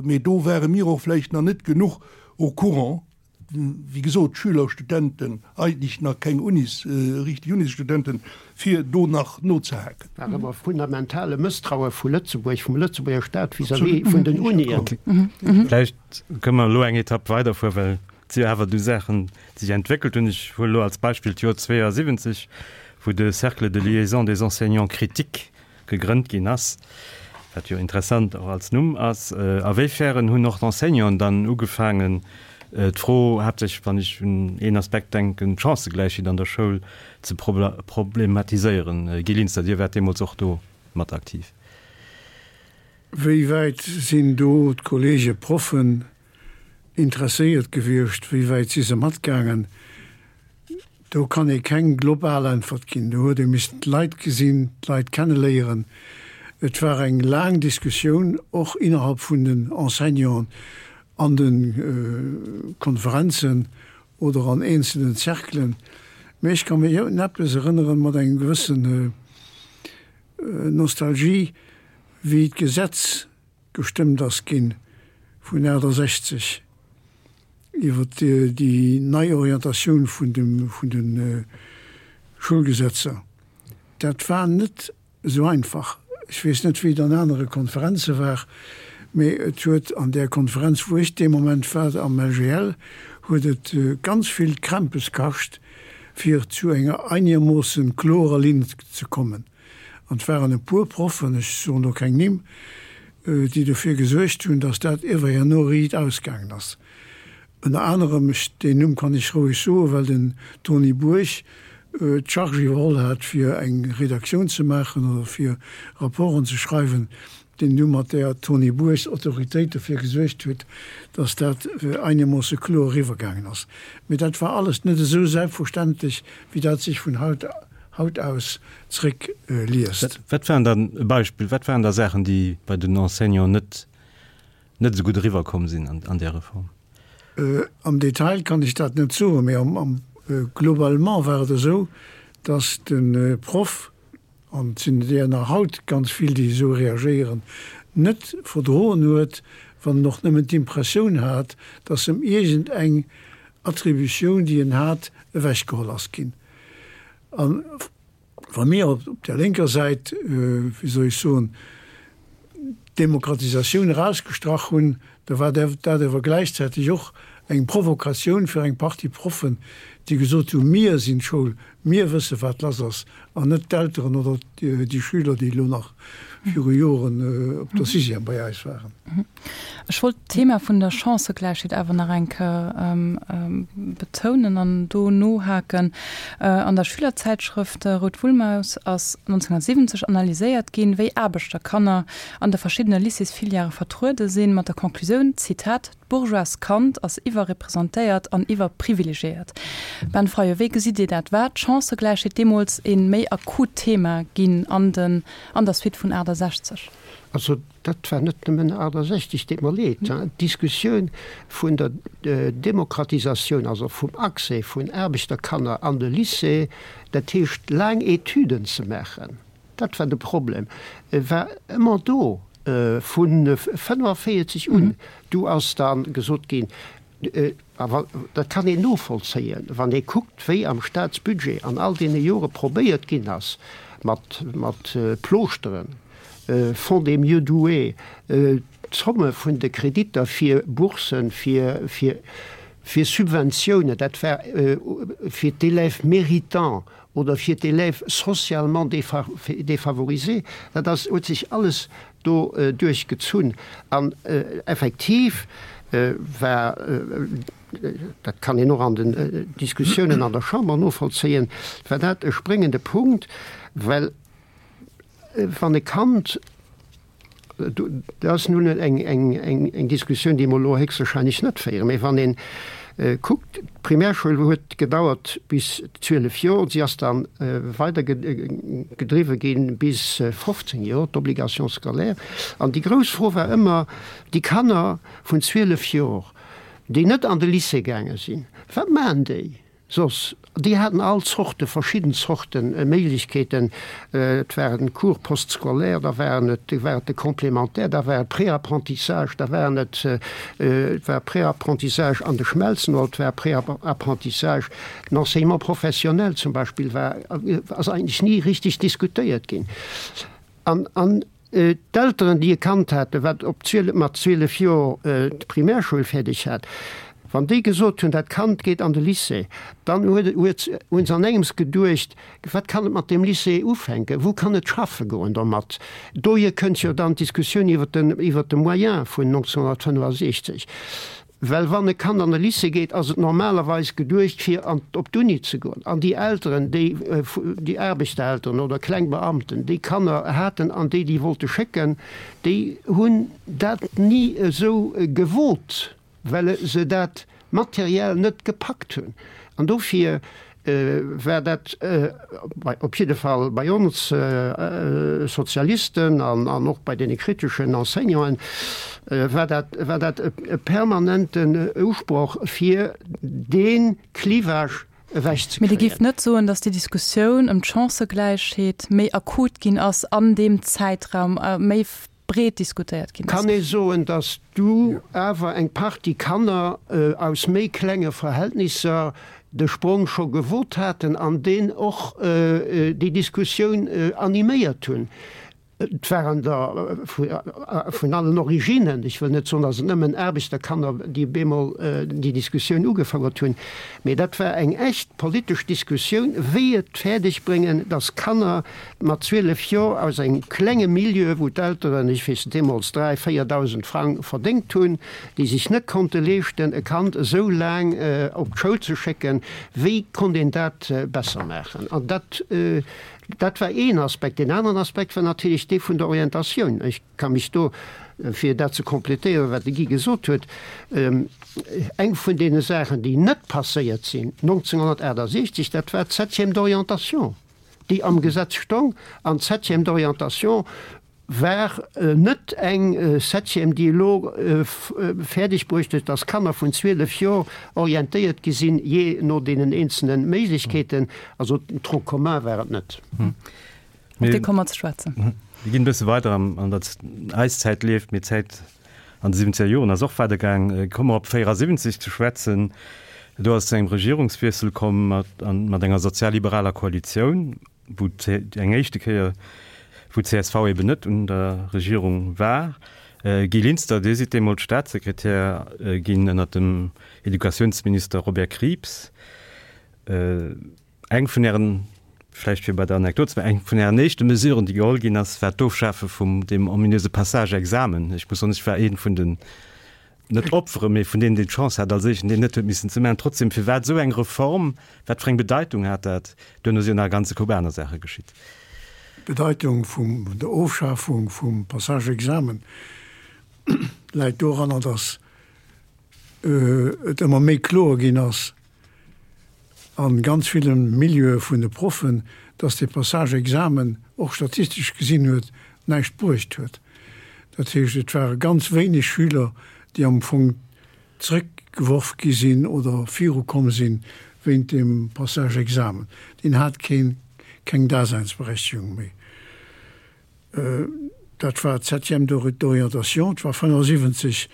mä do ware mir och vläicht nach net genuch au courant, wéi gesot, Schüler, Studenten, eigentlech nach keng Unis, richtig Unisstudenten, fir do nach nozehaken. War ëmmer fundamentale Mësstraue vu Lëtzebuerg, vum Lëtzebuerger Staat vis-à-vis vun den Unien. Vläicht kënne mer elo eng Etapp weiderfueren, well Et si jo awer du Saachen, déi sech entwéckelt hunn. Ech huelen elo als Beispill d'Joer 72, wou de Cercle de liaison des enseignants critiques gegrënnt ginn ass, wat jo interessant och als Numm ass. A wéifern hunn och d'Enseignanten dann ugefaangen, d'Fro, haaptsächlech wann ech un een Aspekt denken, d'Chancëgläichheet an der Schoul ze problematiséieren? Guy Linster, Dir waart deemools och do mat aktiv. Wéi wäit sinn do d'Kollege Proffen interesséiert gewiescht, wéi wäit si se matgaangen? Do kann ee keng global Äntwert ginn. Do huet ee missen d'Leit gesinn, d'Leit kenneléieren. Et war eng laang Diskussioun, och innerhalb vun den Enseignanten an de Konferenzen oder an eenzelnen Cerclen. Mä ech ka mech un eppes erënneren, mat engem gewëssen Nostalgie, wéi d'Gesetz gestëmmt ass ginn vun 68 iwwer déi nei Orientatioun vun de Schoulgesetzer, dat war net esou einfach. Ech weess net, wéi et an anere Konferenze war, mee et huet an där Konferenz, wou ech dee Moment war, am LGL, huet et ganz vill Krämpes kascht. fir zu enger einermoossen klorer Linn ze kommen. An et waren e puer Proffen, ech soen do keng Nimm, déi dofir gesuergt hunn, datt dat iewer herno riit ausgaangen ass. Ënner anerem, ech, deen Numm kann ech roueg soen, well den Tony Bourg d'Charge iwwerholl hat, fir eng Redaktioun ze maachen oder fir Rapporten ze schreiwen, deen du mat där Tony Bourgs Autoritéit dofir gesuergt huet, datt dat einermoosse kloer eriwwergaangen ass. Mee dat war alles net esou selbstverständlech, wéi dat sech vun haut haut aus zréck liest. Wat waren dann, e Beispill, wat waren da Saachen, déi bei den Enseignanten net net esou gutt eriwwerkomm sinn an där Reform? Am Detail kann ech dat net soen, mee am globalement war et esou, datt de Proff, an et sinn der nach haut ganz vill, déi esou reagéieren, net verdroen huet, wann en och nëmmen d'Impressioun hat, datt em iergend eng Attributioun, déi en hat, ewechgeholl ass ginn. A wa mir op der lénker Säit, wéi soll ech soen, d'Demokratisatioun erausgestrach hunn, da war dat awer gläichzäiteg och eng Provokatioun fir eng Partie Proffen, déi gesot hunn, Mir sinn d'Schoul, mir wësse wat lass ass, an net d'Elteren oder déi Schüler, déi elo nach viru Joren op der Sixième bei eis waren. Ech wollt d'Thema vun der Chancëgläichheet awer nach eng Kéier betounen an do nohaken. An der Schülerzäitschrëft Rout Wullmaus ass 1970 analyséiert ginn, wéi Aarbechterkanner an de verschiddene Lycéesfilièrë vertruede sinn, mat der Conclusioun, Zitat, D'bourgeoist Kand ass iwwerrepresentéiert an iwwerprivilegiéiert. Ben Fayot, wéi gesitt Dir dat? War d'Chancëgläichheet deemools ee méi akut Thema ginn an den an der Suite vun 68? Also dat war net nëmmen 68, deet mer leed. D'Diskussioun vun der Demokratisatioun, also vum Accès vun Aarbechterkanner an de Lycée, dat heescht laang Etüden ze maachen, dat war de Problem, war ëmmer do vu 45 un. Du ass da gesot ginn, A dat kann een novollzéien, wann ee kuckt, wéi am Staatsbudget an all deene Jore probéiert ginn ass, mat Plooschteren, Fonds des mieux doués, d'Zomme vun de Kreditter fir Boursen, fir Subventiounen, dat war fir d'Élèves méritants oder fir d'Élèves socialement défavorisés, dat ass, huet sech alles do duerchgezunn. An effektiv war, dat kann een och an den Diskussiounen an der Chamber novollzéien, war dat e spréngende Punkt, well wann e Kand, Dat ass nun eng Diskussioun, déi mer elo héchstwahrscheinlech net féieren. Mä wann ee kuckt, d'Primärschoul huet gedauert bis 12 Joer, si ass da weider gedriwwe gi bis 15 Joer, d'Obligation scolaire. An déi grouss Fro war ëmmer, déi Kanner vun 12 Joer, déi net an de Lycée gaange sinn, wat maachen déi? Soss, déi haten all Zorte, verschidden Zorte Méiglechkeeten. Et waren Cours postscolaires, da waren et, war et de Complémentaire, da war et Préapprentissage, da waren et, et war Préapprentissage an de Schmelzen oder et war Préapprentissage, den Enseignement professionnel zum Beispill war, ass eigentlech ni richtig diskutéiert ginn. An, an D'Elteren, déi e Kand haten, wat op 12, mat 12 Joer d'Primärschoul fäerdeg hat, wann déi gesot hunn, dat Kand geet an de Lycée, dann huet, huet, hu se an engems geduecht, wat kann et mat deem Lycée ufänken, wou kann et schaffe goen domat? Dohier kënnt jo dann d'Diskussioun iwwer den, iwwer de Moyen vun 1965. Well wann e Kand an de Lycée geet, ass et normalerweis geduecht, fir an op d'Uni ze goen. An déi Elteren, déi, déi Aarbechterelteren oder kleng Beamten, déi Kanner haten an déi déi wollte schécken, déi hunn dat ni esou gewot, well se dat materiell net gepackt hunn. An dofir war dat op jidde Fall bei ons Sozialisten an och bei deene kriteschen Enseignanten, war dat, war dat e permanenten Usproch, fir dee Clivage ewechzekréien. Mee Dir géift net soen, datt déi Diskussioun ëm d'Chancëgläichheet méi akut ginn ass an deem Zäitraum, méi breet diskutéiert ginn ass. Kann ee soen, datt du awer eng Partie Kanner aus méi klenge Verhältnisser de Sprong scho gewot haten an deen och déi Diskussioun animéiert hunn. Et waren der vun allen Originnen, ech wëll net soen, datt et nëmmen Aarbechterkanner, déi bemol déi Diskussioun ugefouert hunn, mee dat war eng echt politesch Diskussioun, wéi et fäerdeg bréngen, datt Kanner mat 12 Joer aus engem klenge Milieu, wou d'Elteren, ech weess net, deemools 3, 4.000 Frang verdéngt hunn, déi sech net konnte leeschten, e Kand esou laang op d'Schoul ze schécken, wéi konnt een dat besser maachen? An dat Dat war een Aspekt. Deen aneren Aspekt war natierlech dee vun der Orientatioun. Ech ka mech do, fir dat ze complétéieren, wat de Guy gesot huet, eng vun deene Saachen, déi net passéiert sinn 1968, dat war d'Septième d'orientation, déi am Gesetz stong. An d'Septième d'orientation war net eng Septième, déi elo fäerdeg bruecht huet, dass Kanner vun 12 Joer orientéiert gi sinn, jee no deenen eenzelne Méiglechkeeten. Also Tronc commun war et net. Op dee komme mer ze schwätzen. Mir ginn e bësse weider an der eis Zäit leeft, mee d'Zäit an de siwwenzeger Joren ass och weidergaang. Komme mer op 74 ze schwätzen. Do ass et zu engem Regierungswiessel komm mat enger sozialliberaler Koalitioun. wou eng éischte Kéier, wou csv eben net un der Regierung war. Guy Linster, Dir sidd deemools Staatssekretär ginn ënnert dem Educatiounsminister Robert Krieps. Eng vun Ären, vläicht fir bei der Anekdot ze bleiwen, eng vun Ären éischte Mesuren, déi geholl ginn ass, war d'Ofschafe vum deem ominöse Passage-Examen. Ech muss soen, ech war ee vun den net Opfere, mee vun deenen, deen d'Chance hat als éischten, deen net huet missen ze maachen. Trotzdem, firwat esou eng Reform? Wat fir eng Bedeitung hat dat? Duerno si jo nach e ganze Koup aner Saache geschitt. D'Bedeitung vum der Ofschafung vum Passage-Examen läit doranner, datt et ëmmer méi kloer ginn ass a ganz ville Milieue vun de Proffen, datt dee Passage-Examen och statistesch gesinn huet näischt bruecht huet. Dat heescht, et ware ganz wéineg Schüler, déi am Fong zrëckgeworf gi sinn oder virukomm sinn wéint deem Passage-Examen. Deen hat keen, keng Daseinsberechtigung méi. Dat war d'Septième d'orientation, et war 75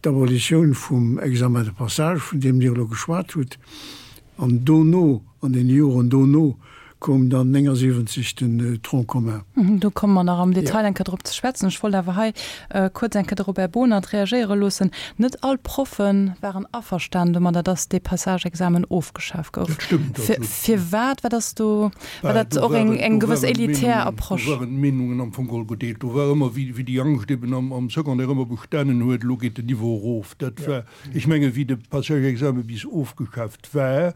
d'Abolitioun vum Examen de passage, vun deem Dir elo geschwat hutt. An dono, an deene Joren dono, koum dann 79 den Tronc commun. Do komme mer nach am Detail eng Kéier drop ze schwätzen. Ech wollt awer hei kuerz eng Kéier de Robert Bohnert reagéiere loossen. Net all Proffe waren averstanen domadder, dass dee Passage-Examen ofgeschaf gouf. Dat stëmmt absolut. Firwat? Wat ass do, war dat och eng gewëss elitär Approche? Do waren d'Meenungen am Fong geholl gedeelt. Do war ëmmer, wéi déi Angscht eben am Secondaire ëmmer bestanen huet, elo geet den Niveau erof. Dat war, ech mengen, wéi de Passage-Examen bis ofgeschaaft war,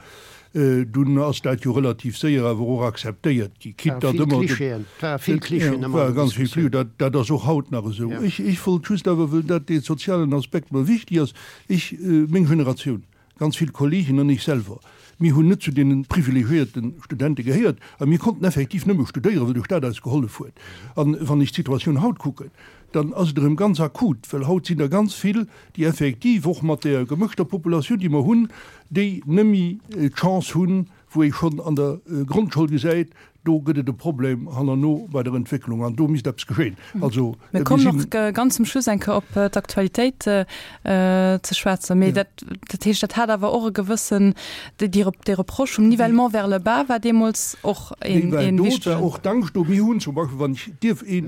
dunn ass dat jo relativ séier awer och akzeptéiert gi, quitte datt ëmmer de. Ware vill Klischeeën ëmmer an der Diskussioun. Dat, dat ass och haut nach esou. Ech, ech wollt just awer, wëll dat dee sozialen Aspekt mer wichtig ass, ech, meng Generatioun, ganz vill Kollegen an ech selwer, mir hunn net zu deene privilegiéierte Studente gehéiert a mir konnten effektiv nëmme studéieren, well de Staat eis gehollef huet. An wann ech d'Situatioun haut kucken, dann ass et erëm ganz akut, well haut sinn der ganz vill, déi effektiv och mat där gemëschter Populatioun, déi mer hunn, déi nëmme d'Chance hunn, wou ee schonn an der Grondschoul gesäit, do gëtt et e Problem hannerno bei der Entwécklung an do misst eppes geschéien. Also mir kommen och ganz zum Schluss eng Kéier op d'Aktualitéit ze schwätzen. Mee dat, dat heescht, dat hat awer och e gewëssen, déi Reproche vum Nivellement vers le bas war deemools och een, een wichtegen. Do war och d'Angscht do. Mir hunn zum Beispill, wann ech dierf ee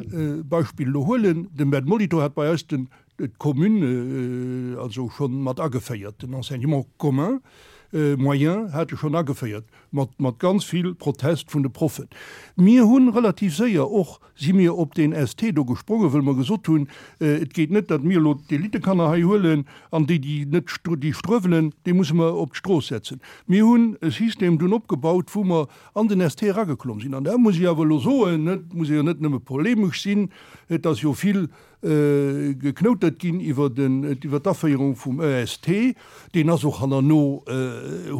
Beispill elo huelen, den Ben Molitor hat bei eis den, d'Commune also schonn mat ageféiert, den Enseignement commun moyen hat e schonn ageféiert, mat, mat ganz vill Protest vun de Proffen. Mir hunn relativ séier och, si mir op deen ST do gesprongen, wëll mer gesot hunn, et geet net, datt mir elo d'Elitekanner hei huelen an déi, déi net, déi struewelen, déi musse mer op d'Strooss setzen. Mir hunn e System dunn opgebaut, wou mer an den ST erageklomm sinn. An da muss ech awer elo soen, et muss ee jo net nëmme polemesch sinn, et ass jo vill Geknoutert ginn iwwer den, iwwer d'Aféierung vum EST. Deen ass och hannerno,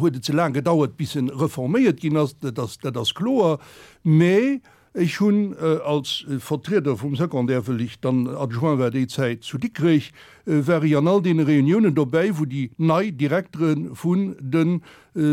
huet et ze laang gedauert, bis en reforméiert ginn ass, dat ass, dat ass kloer. Mä ech hunn als Vertrieder vum Secondaire, wëll ech dann Adjoint war déi Zäit zu Dikrech, war ech an all deene Reuniounen dobäi, wou déi nei Direktere vun de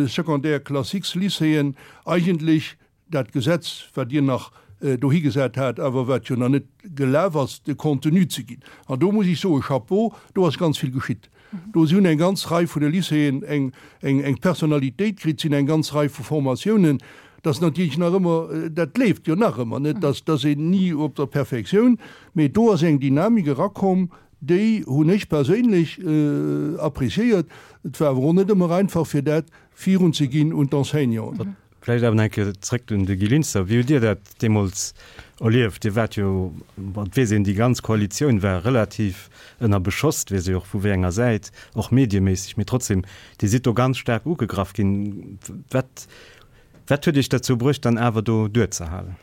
Secondaires classiques Lycéeën eigentlech dat Gesetz, wat Dir nach dohi gesat hat, awer wat jo nach net gelaf ass, de Contenu ze ginn. An do muss ech soen, Chapeau, do ass ganz vill geschitt. Do si hunn eng ganz Rei vun de Lycéeën eng, eng, eng Personalitéit kritt, sinn eng ganz Rei vu Formatiounen. Dat ass natierlech nach ëmmer, dat leeft jo nach ëmmer net, dass dass een ni op der Perfektioun, mee do ass eng Dynamik erakomm, déi hunn ech perséinlech appréciéiert. Et war awer och net ëmmer einfach, fir dat virunzeginn un d'Enseignanten. Vläicht awer nach eng Kéier zréck un de Guy Linster. Wéi hutt Dir dat deemools erlieft? Dir waart jo, bon, et weess een, déi ganz Koalitioun war relativ ënner Beschoss, et weess ee och vu wéi enger Säit, och medieméisseg, mee trotzdem, Dir sidd do ganz staark ugegraff ginn. Wat, wat huet Iech derzou bruecht, dann awer do duerzehalen?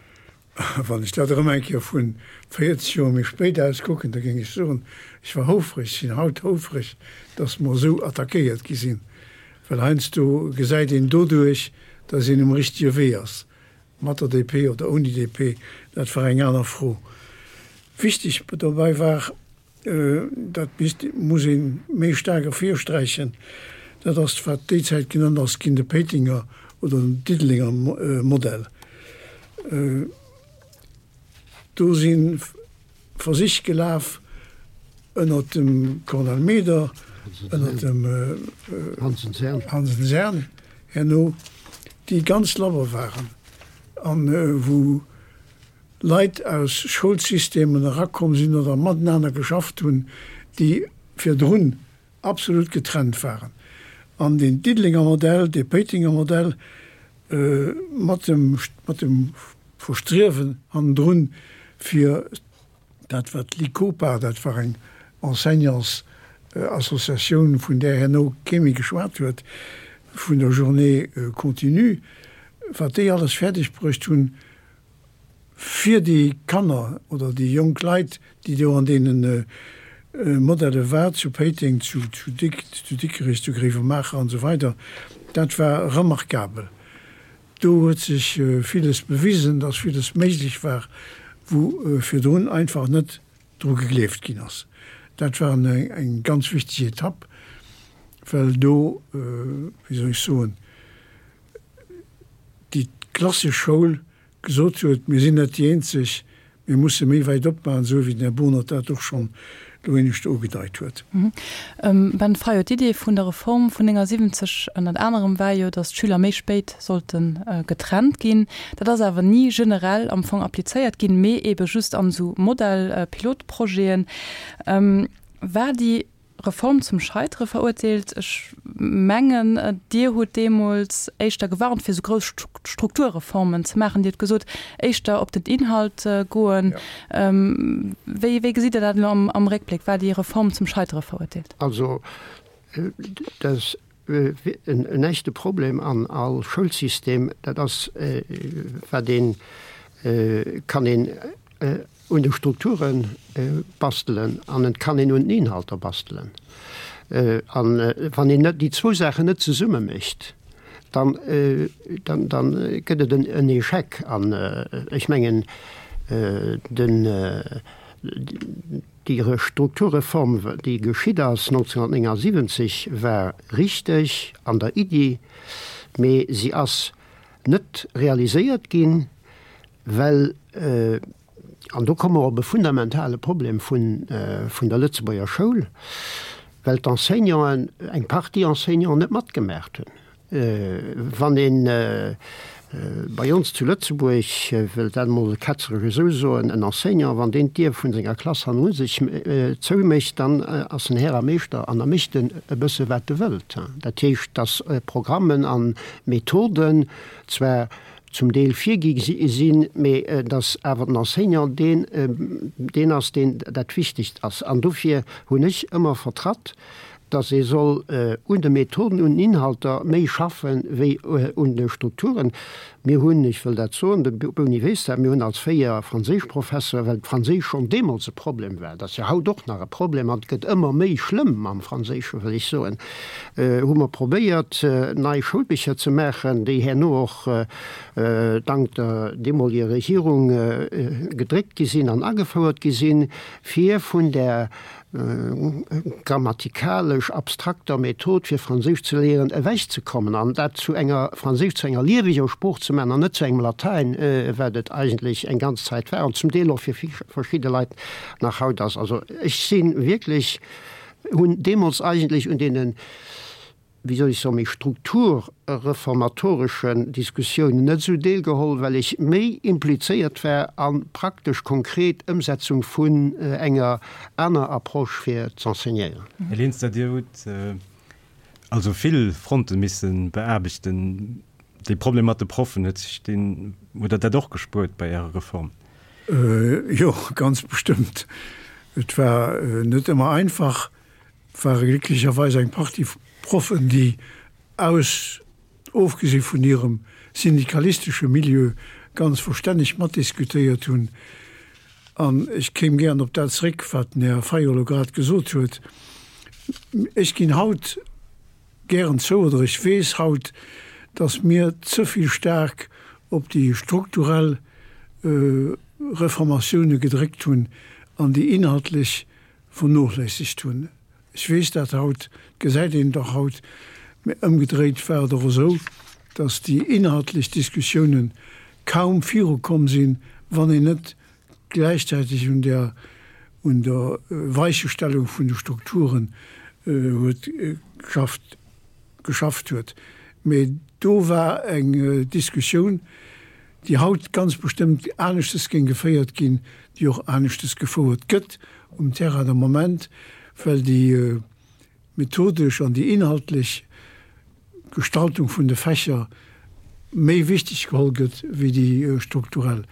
Wann ech dat erëm eng Kéier vu 40 Joer méi spéit aus kucken, da géing ech soen, ech war houfreg, sinn haut houfreg, datt mer esou attackéiert gi sinn, well heiansdo gesäit een doduerch, datt een um richtege Wee ass, mat der DP oder ouni DP, dat war eng aner Fro. Wichteg dobäi war, Dat misst, muss ee méi staark ervirsträichen, dat ass, wat déi Zäit genannt ass ginn, de Péitenger oder den Diddelenger Modell. Do si Versich gelaf ënner dem Cornel Meder, ënner dem Hansen-Sern herno, déi ganz labber waren an wou Leit aus Schoulsystemen erakomm sinn oder matenaner geschafft hunn, déi virdrun absolut getrennt waren. An deen Diddelenger Modell, dee Péitenger Modell mat dem, mat dem Verstriewen hannendrun, fir dat wat l'ICOPA, dat war eng Enseignantsassociatioun, vun där herno kee méi geschwat huet, vun der Journée continue, wat déi alles fäerdeg bruecht hunn, fir déi Kanner oder déi jonk Leit, déi do an deene Modelle war, zu Péiteng, zu Dikrech, zu Gréiwemaacher an esou weider, dat war remarkabel. Do huet sech villes bewisen, dass villes méiglech war, wou virdrun einfach net dru gegleeft ginn ass. Dat war eng ganz wichteg Etapp, well do, wéi soll ech soen, déi klassesch Schoul gesot huet, mir sinn net déi eenzeg, mir musse méi wäit opmaachen, esou wéi den Här Bohnert dat och schonn do éinescht ugedeit huet. Ben Fayot, D'Idee vun der Reform vun 79 ënnert anerem war jo, datt d'Schüler méi spéit sollte getrennt ginn. Dat ass awer ni generell am Fong applizéiert ginn, mee eebe just an esou Modell-Pilotprojeten. War déi Reform zum Scheitere verurteelt. Ech mengen, Dir hutt deemools éischter gewarnt, fir esou grouss Strukturreformen ze maachen. Dir hutt gesot, éischter op den Inhalt goen. Wéi, wéi gesitt Dir dat elo am Réckbléck? War déi Reform zum Scheitere verurteelt? Also, dat ass en echte Problem an all Schoulsystem. Dat ass, wat een, kann een un de Strukture bastelen an et kann een un den Inhalter bastelen. An wann een déi zwou Saachen net zesumme mécht, dann, dann, dann gëtt et en Échec. An ech mengen, den, déi Strukturreform, déi geschitt ass 1979, war richteg an der Iddi, mee si ass net realiséiert ginn, Well, an do komme mer op e fundamentale Problem vun der Lëtzebuerger Schoul, well d'Enseignanten, eng Partie Enseignanten net matgemaacht hunn. Wann ee bei ons zu Lëtzebuerg, wëll dat emol ketzeresch esou soen, en Enseignant, wann deen d'Dier vun senger Klass hanneru sech zoumécht, dann ass en Här a Meeschter an da mécht en e bësse wat e wëllt. Dat heescht, datt Programmen a Methoden zwar zum Deel virgi sinn, mee dass awer den Enseignant deen, deen ass, deen dat Wichtigst ass. An dofir hunn ech ëmmer vertratt, dass ee soll un de Methoden, un den Inhalter méi schaffen, wéi un de Strukturen. Mir hunn, ech wëll dat soen, de Boni weess dat, mir hunn als fréier Franséischprofessor, well d'Franséisch schonn deemools e Problem war, dat ass jo haut och nach e Problem an et gëtt ëmmer méi schlëmm mam Franséischen, wëll ech soen, hu mer probéiert, nei Schoulbicher ze maachen, déi herno och dank der deemoliger Regierung gedréckt gi sinn an agefouert gi sinn, fir vun där grammatikalesch abstrakter Method fir Franséisch ze léieren ewechzekommen an dat zu enger Franséisch zu enger lieweger Sprooch ze maachen an net zu engem Latäin, wat et eigentlech eng ganz Zäit war an zum Deel och fir verschidde Leit nach haut ass. Also ech si wierklech hunn deemools eigentlech un deene. wéi soll ech soen, méi strukturreformatoreschen Diskussiounen net esou deelgeholl, well ech méi implizéiert war a praktesch konkret Ëmsetzung vun enger aner Approche fir z'enseignéieren. Här Linster, Dir hutt also vill Fronte misse beaarbechten. Dee Problem mat de Proffen, huet sech deen, hutt Der dat och gespuert bei Ärer Reform? Jo, ganz bestëmmt. Et war net ëmmer einfach. Et ware glécklecherweis eng Partie Proffen, déi aus, ofgesi vun hirem syndikalistesche Milieu, ganz verstänneg matdiskutéiert hunn. An ech kéim gären op dat zréck, wat den Här Fayot elo grad gesot huet. Ech ginn haut gären zou, oder ech weess haut, datt mir ze vill staark op déi strukturell Reformatioune gedréckt hunn an déi inhaltlech vernochléissegt hunn. Ech weess dat haut, et gesäit een et och haut, mä ëmgedréit war et och esou, datt déi inhaltlech Diskussiounen kaum virukomm sinn, wann een net gläichzäiteg un der un der Weichestellung vun de Strukturen huet geschafft geschafft huet. Mä do war eng Diskussioun, déi haut ganz bestëmmt aneschtes géing geféiert ginn, déi och aneschtes gefouert gëtt um Terrain de Moment, well déi methodesch an déi inhaltlech Gestaltung vun de Fächer méi wichteg geholl gëtt wéi déi strukturell.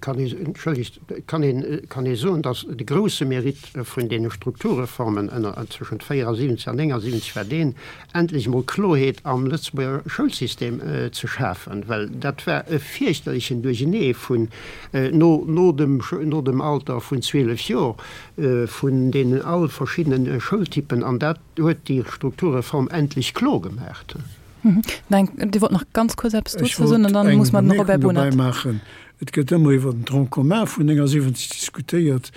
Kann ee, entschëllegt, kann een, kann ee soen, datt de grouse Mérite vun deene Strukturreformen ënner, tëschent 74 an 79 war deen, endlech emol Kloheet am Lëtzebuerger Schoulsystem ze schafen, well dat war e fierchterlechen Duerchenee vun no, no dem, no dem Alter vun 12 Jor, vun deenen all verschiddenen Schoultypen, an dat huet déi Strukturreform endlech kloer gemaacht. Nein, Dir wollt nach ganz kuerz eppes dozou soen an dann muss mer den Robert Bohnert. Ech wollt eng Bemierkung dobäi maachen. Et gëtt ëmmer iwwer den Tronc commun vun 79 diskutéiert,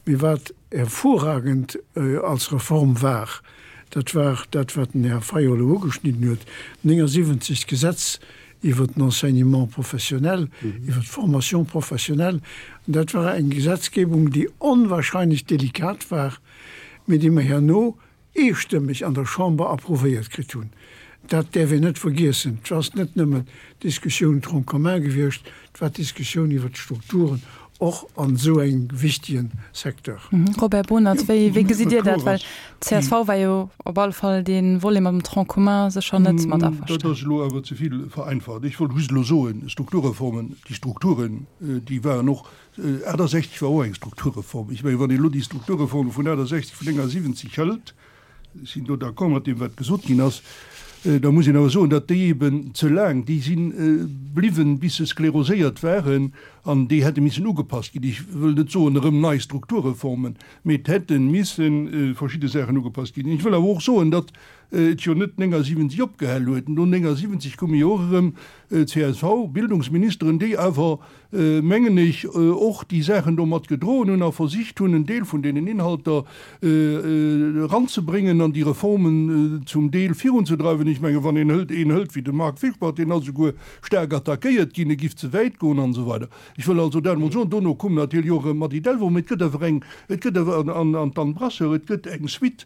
mee wat hervorragend als Reform war, dat war dat, wat den Här Fayot elo ugeschnidden huet, 79 d'Gesetz iwwer den Enseignement professionnel, iwwer d'Formation professionnelle. An dat war eng Gesetzgebung, déi onwahrscheinlech delikat war, mee déi mer herno eestëmmeg an der Chamber approuvéiert kritt hunn. Dat däerf een net vergiessen. Et ass net nëmmen d'Diskussioun Tronc commun gewiescht, et war d'Diskussioun iwwert d'Strukturen och an esou engem wichtige Secteur. Robert Bohnert, wéi gesitt Dir dat? Well d'CSV war jo op alle Fall dee Volet mam Tronc commun sécher net mat averstanen. Dat ass elo awer ze vill vereinfacht. Ech wollt just elo soen, Strukturreformen, déi Strukturen, déi waren och 68 war och eng Strukturreform. Ech mengen, wann een elo déi Strukturreforme vun 68, vun 79 hëlt, ech sinn do d'accord mat deem, wat gesot ginn ass, da muss een awer soen, datt déi eben ze laang, déi si bliwwen, bis se skleroséiert waren, an déi hätte missen ugepasst ginn. Ech wëll net soen erëm nei Strukturreformen, mee et hätte misse verschidde Saachen ugepasst ginn. Ech wëll awer och soen, datt et jo net 79 opgehal huet. No 79 koume jo och erëm CSV-Bildungsministeren, déi awer mengen ech, och déi Saachen do mat gedroen hunn a versicht hunn, en Deel vun deenen Inhalter eranzebréngen an déi Reformen zum Deel virunzedreiwen. Ech mengen, wann een hëlt, een hëlt wéi de Marc Fischbach, deen ass esouguer staark attackéiert ginn, e giff ze wäit goen an esou weider. Ech wëll also dat emol soen. Dono koum natierlech och erëm d'Mady Delvaux, mee et gëtt awer eng, et gëtt awer, an d'Anne Brasseur, et gëtt eng Suite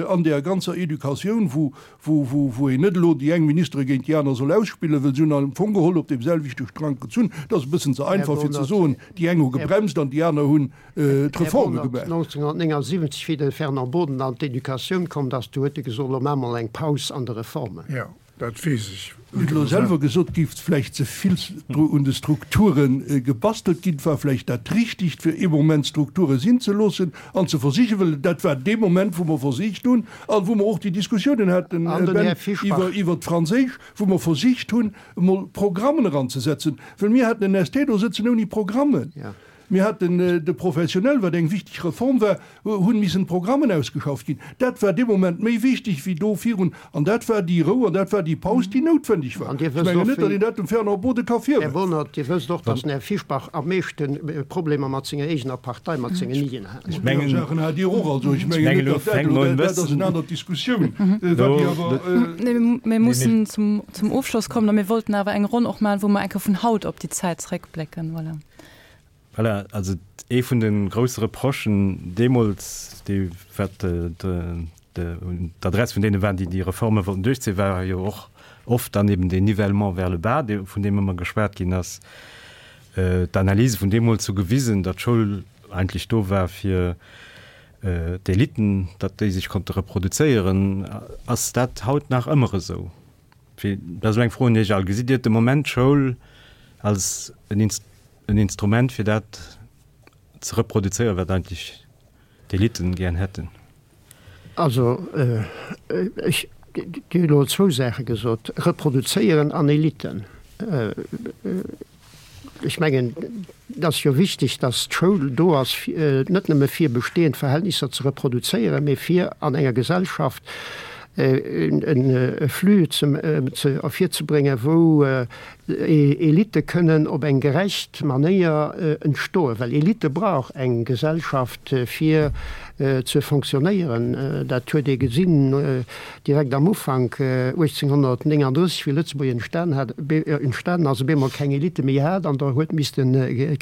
an där ganzer Educatioun, wou wou, wou, wou een net elo déi eng Ministere géint déi aner soll ausspillen, well se hunn am Fong geholl op deem selwechte Strang gezunn. Dat ass e bëssen ze einfach fir ze soen, déi eng hu gebremst an déi aner hunn d'Reforme gemaach. 1979, wéi de Fernand Boden an d'Educatioun komm ass, du huet e gesot, elo maache mer eng Paus an de Reformen. Jo, dat weess ech. Hutt elo selwer gesot, géif vläicht ze vill un de Strukture gebastelt ginn. Et war vläicht dat Richtigt, fir ee Moment d'Strukture sinn ze loossen an ze versichen, well dat war dee Moment, wou mer versicht hunn a wou mer och déi Diskussiounen haten, Ben, iwwert d'Franséisch, wou mer versicht hunn, emol Programmen eranzesetzen, well mir haten en ST do sëtzen ouni Programmen. Mir haten de Professionnel, wat eng wichteg Reform war, hunn missen Programmen ausgeschafft ginn. Dat war dee Moment méi wichteg wéi do virun. An dat war déi Rou an dat war déi Paus, déi noutwendeg war. Ech mengen net, datt een dat dem Fernand Bode ka virwerfen. Här Bohnert, Dir wësst och, datt den Här Fischbach am meeschte Problemer mat senger eegener Partei, mat sengen Nidien hat. Ech mengen, Saachen hat Dir och. Also ech mengen net, datt dat elo, dat ass eng aner Diskussioun, wat déi awer. Mir mussen zum Ofschloss kommen a mir wollten awer eng Ronn och maachen, wou mer eng Kéier vun haut op déi Zäit zréckblécken. Voilà. Voilà, also ee vun de grousse Reprochen deemools, dee wat de. Un d'Adress vun deene waren, déi déi Reforme wollten duerchzéien, war jo och oft dann eben deen Nivellement vers le bas, dee vun deem ëmmer geschwat ginn ass. D'Analyse vun deemools hu gewisen, datt d'Schoul eigentlech do war fir d'Eliten, datt déi sech konnte reproduzéieren. Ass dat haut nach ëmmer esou? Fir, dat ass elo eng Fro un Iech all, Gesitt Dir de Moment d'Schoul als en Instrument fir dat ze reproduzéieren, wat eigentlech d'Eliten gären hätten? Also, ech, Dir hutt elo zwou Saache gesot, reproduzéieren an Eliten. Ech mengen, et ass jo wichteg, datt d'Schoul do ass, net nëmme fir bestehend Verhältnisser ze reproduzéieren, mee fir an enger Gesellschaft e Flux ervirzebréngen, wou Elitte kënnen op eng gerecht Manéier entstoen, well Elitte brauch eng Gesellschaft fir ze fonctionnéieren. Dat huet ee gesinn direkt am Ufank 1839, wéi Lëtzebuerg entstan hat, entstanen ass, op eemol keng Elitte méi hat an der huet misste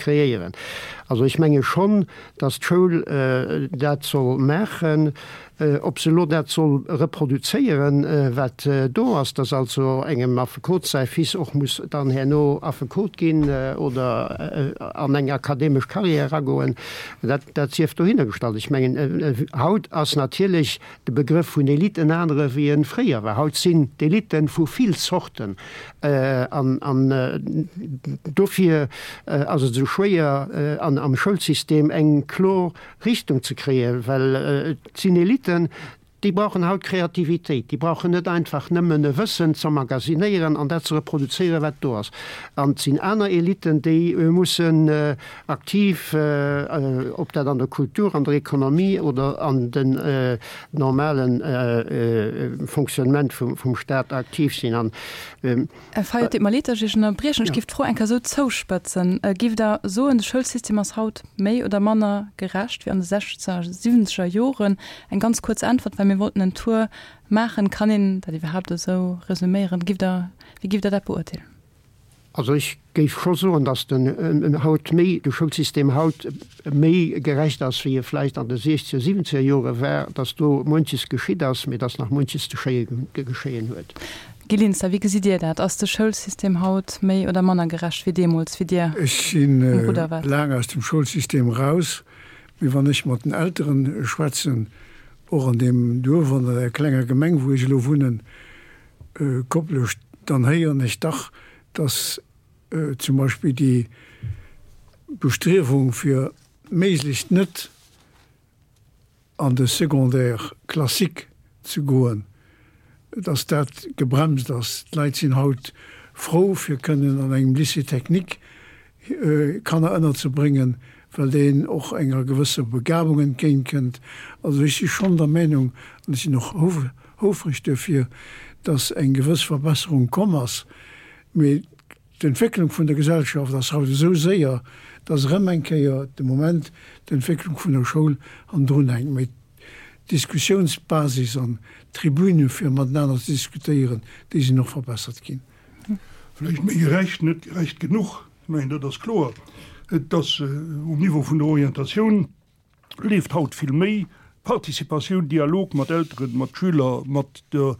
kreéieren. Also ech menge schonn, datt d'Schoul dat soll maachen. Ob se elo dat soll reproduzéieren, wat do ass, dass also engem Affekot säi Fils och muss dann herno Affekot ginn oder an eng akademesch Carrière eragoen, dat, dat sief dohinner gestallt. Ech mengen, haut ass natierlech de Begrëff vun Elite en anere wéi e fréier war. Haut sinn d'Elite vu vill Zorten an, an dofir ass et esou schwéier an, am Schoulsystem eng kloer Richtung ze kréien, well et sinn Eliten, déi brauchen haut Kreativitéit, déi brauchen net einfach nëmmen e Wëssen z'emmagasinéieren an dat ze reproduzéieren, wat do ass. An et sinn aner Eliten, déi mussen aktiv, ob dat an der Kultur, an der Ekonomie oder an den normale Fonctionnement vum Stat aktiv sinn. An Här Fayot, et deet mer leed, datt ech Iech ënnerbriechen. Ech géif d'Fro eng Kéier esou zouspëtzen. Géift Der soen, de Schoulsystem ass haut méi oder manner gerecht wéi an de sechzeger, siwwenzeger Joren? Eng ganz kuerz Äntwert, well mir wollten en Tour maachen. Kann een dat iwwerhaapt esou resuméieren? Géift Der, wéi géift Der dat beurteelen? Also ech géif scho soen, datt den haut méi, de Schoulsystem haut méi gerecht ass, wéi e vläicht an de siechzeger, siwwenzeger Jore war, datt do muenches geschitt ass, mee datt nach muenches ze geschéien huet. Guy Linster, wéi gesitt Dir dat? Ass de Schoulsystem haut méi oder manner gerecht wéi deemools, wéi Dir Ech si um Rudder waart? laang aus dem Schoulsystem eraus, mee wann ech mat den Elteren schwätzen, och an deem Duerf, an der klenger Gemeng, wou ech elo wunnen, Koplescht, dann héieren ech dach, dass zum Beispill déi Bestriewung fir méiglechst net an de Secondaire classique ze goen, dass dat gebremst ass. D'Leit sinn haut frou fir kënnen an engem Lycée technique Kanner ënnerzebréngen, well deen och enger gewësser Begabung entgéintkënnt. Also ech si schonn der Meinung, an ech sinn och houfreg duerfir, dass eng gewëss Verbesserung komm ass. Mee d'Entwécklung vun der Gesellschaft ass haut esou séier, dass erëm eng Kéier de Moment d'Entwécklung vun der Schoul hannendrun hänkt. Mee d'Diskussionsbasis an d'Tribüne fir matenaner ze diskutéieren, déi sinn och verbessert ginn. Vläicht méi gerecht, net gerecht genuch, ech mengen dat ass kloer. Et ass um Niveau vun der Orientatioun leeft haut vill méi Participatioun, Dialog mat Elteren, mat Schüler, mat der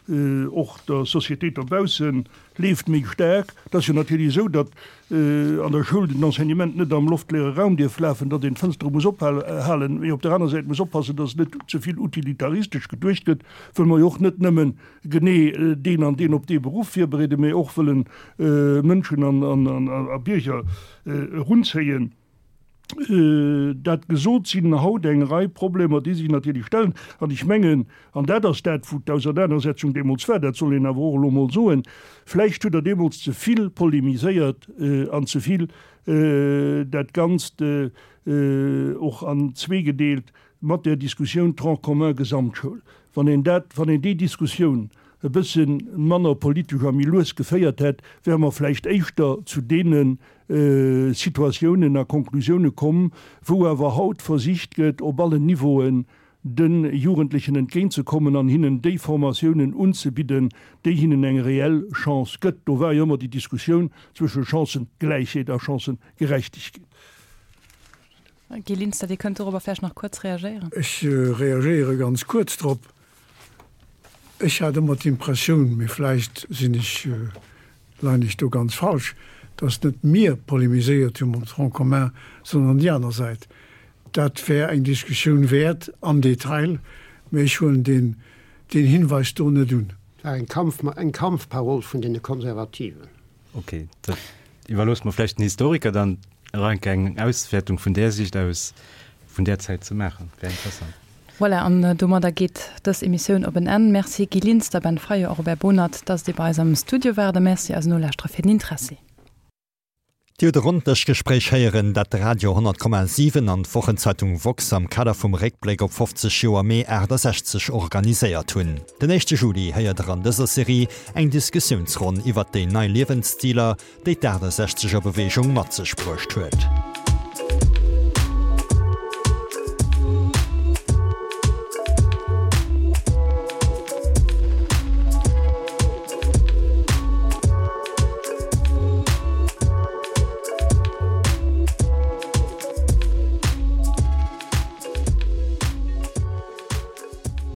och der Société dobaussen leeft méi staark. Et ass jo natierlech esou, datt an der Schoul den Enseignement net am loftleere Raum dierf lafen, datt een d'Fënstere muss ophalen, mee op der aner Säit muss oppassen, datt net ze vill utilitaristesch geduecht gëtt, wëll mer jo och net nëmmen genee deen an deen op dee Beruff virbereeden, mee och wëllen Mënschen a Bierger erunzéien. Dat gesot, sinn haut eng Rei Problemer, déi sech natierlech stellen. An ech mengen, an dat ass dat, wou d'Ausernanersetzung deemools war, dat soll een awer och elo emol soen, vläicht hutt Der deemools ze vill polemiséiert an ze vill dat Ganzt och an zwee gedeelt, mat där Diskussioun Tronc commun Gesamtschoul, wann een dat, wann een déi Diskussioun e bësse manner politesch a méi lues geféiert hätt, wäre mer vläicht éischter zu deene Situatiounen a Konklusioune komm, wou awer haut versicht gëtt, op allen Niveauen de Jugendlechen entgéintzekommen an hinnen déi Formatiounen unzebidden, déi hinnen eng reell Chance gëtt. Do war jo ëmmer déi Diskussioun zwësche Chancëgläichheet a Chancëgerechtegkeet. Guy Linster, Dir kënnt dorobber vläicht nach kuerz reagéieren. Ech reagéiere ganz kuerz drop. Ech hat ëmmer d'Impressioun, mee vläicht sinn ech, leien ech do ganz falsch, datt net mir polemiséiert hu mam Tronc commun, sondern déi aner Säit. Dat wär eng Diskussioun wäert am Detail, mee ech huelen deen, deen Hinweis do net un. Et war eng Kampf, eng Kampfparol vun deene Konservativen. Ok, dat iwwerloosse mer vläicht den Historiker dann nach eng Kéier eng Auswäertung vun där Siicht aus vun där Zäit ze maachen. Wär interessant. Voilà, an domadder geet dës Emissioun op en Enn. Merci Guy Linster, Ben Fayot a Robert Bohnert, dass Dir bei eis am Studio waart a Merci eisen Nolauschterer fir den Interessi. Dir hutt e Ronndëschgespréich héieren, dat de Radio 10,7 an d'Wochenzeitung woxx am Kader vum Réckbléck op 50 Joer Mee 68 organiséiert hunn. Den éischte Juli héiert der an dëser Serie eng Diskussiounsronn iwwert déi nei Liewensstiler, déi d'Aachtasechzeger Beweegung mat sech bruecht huet.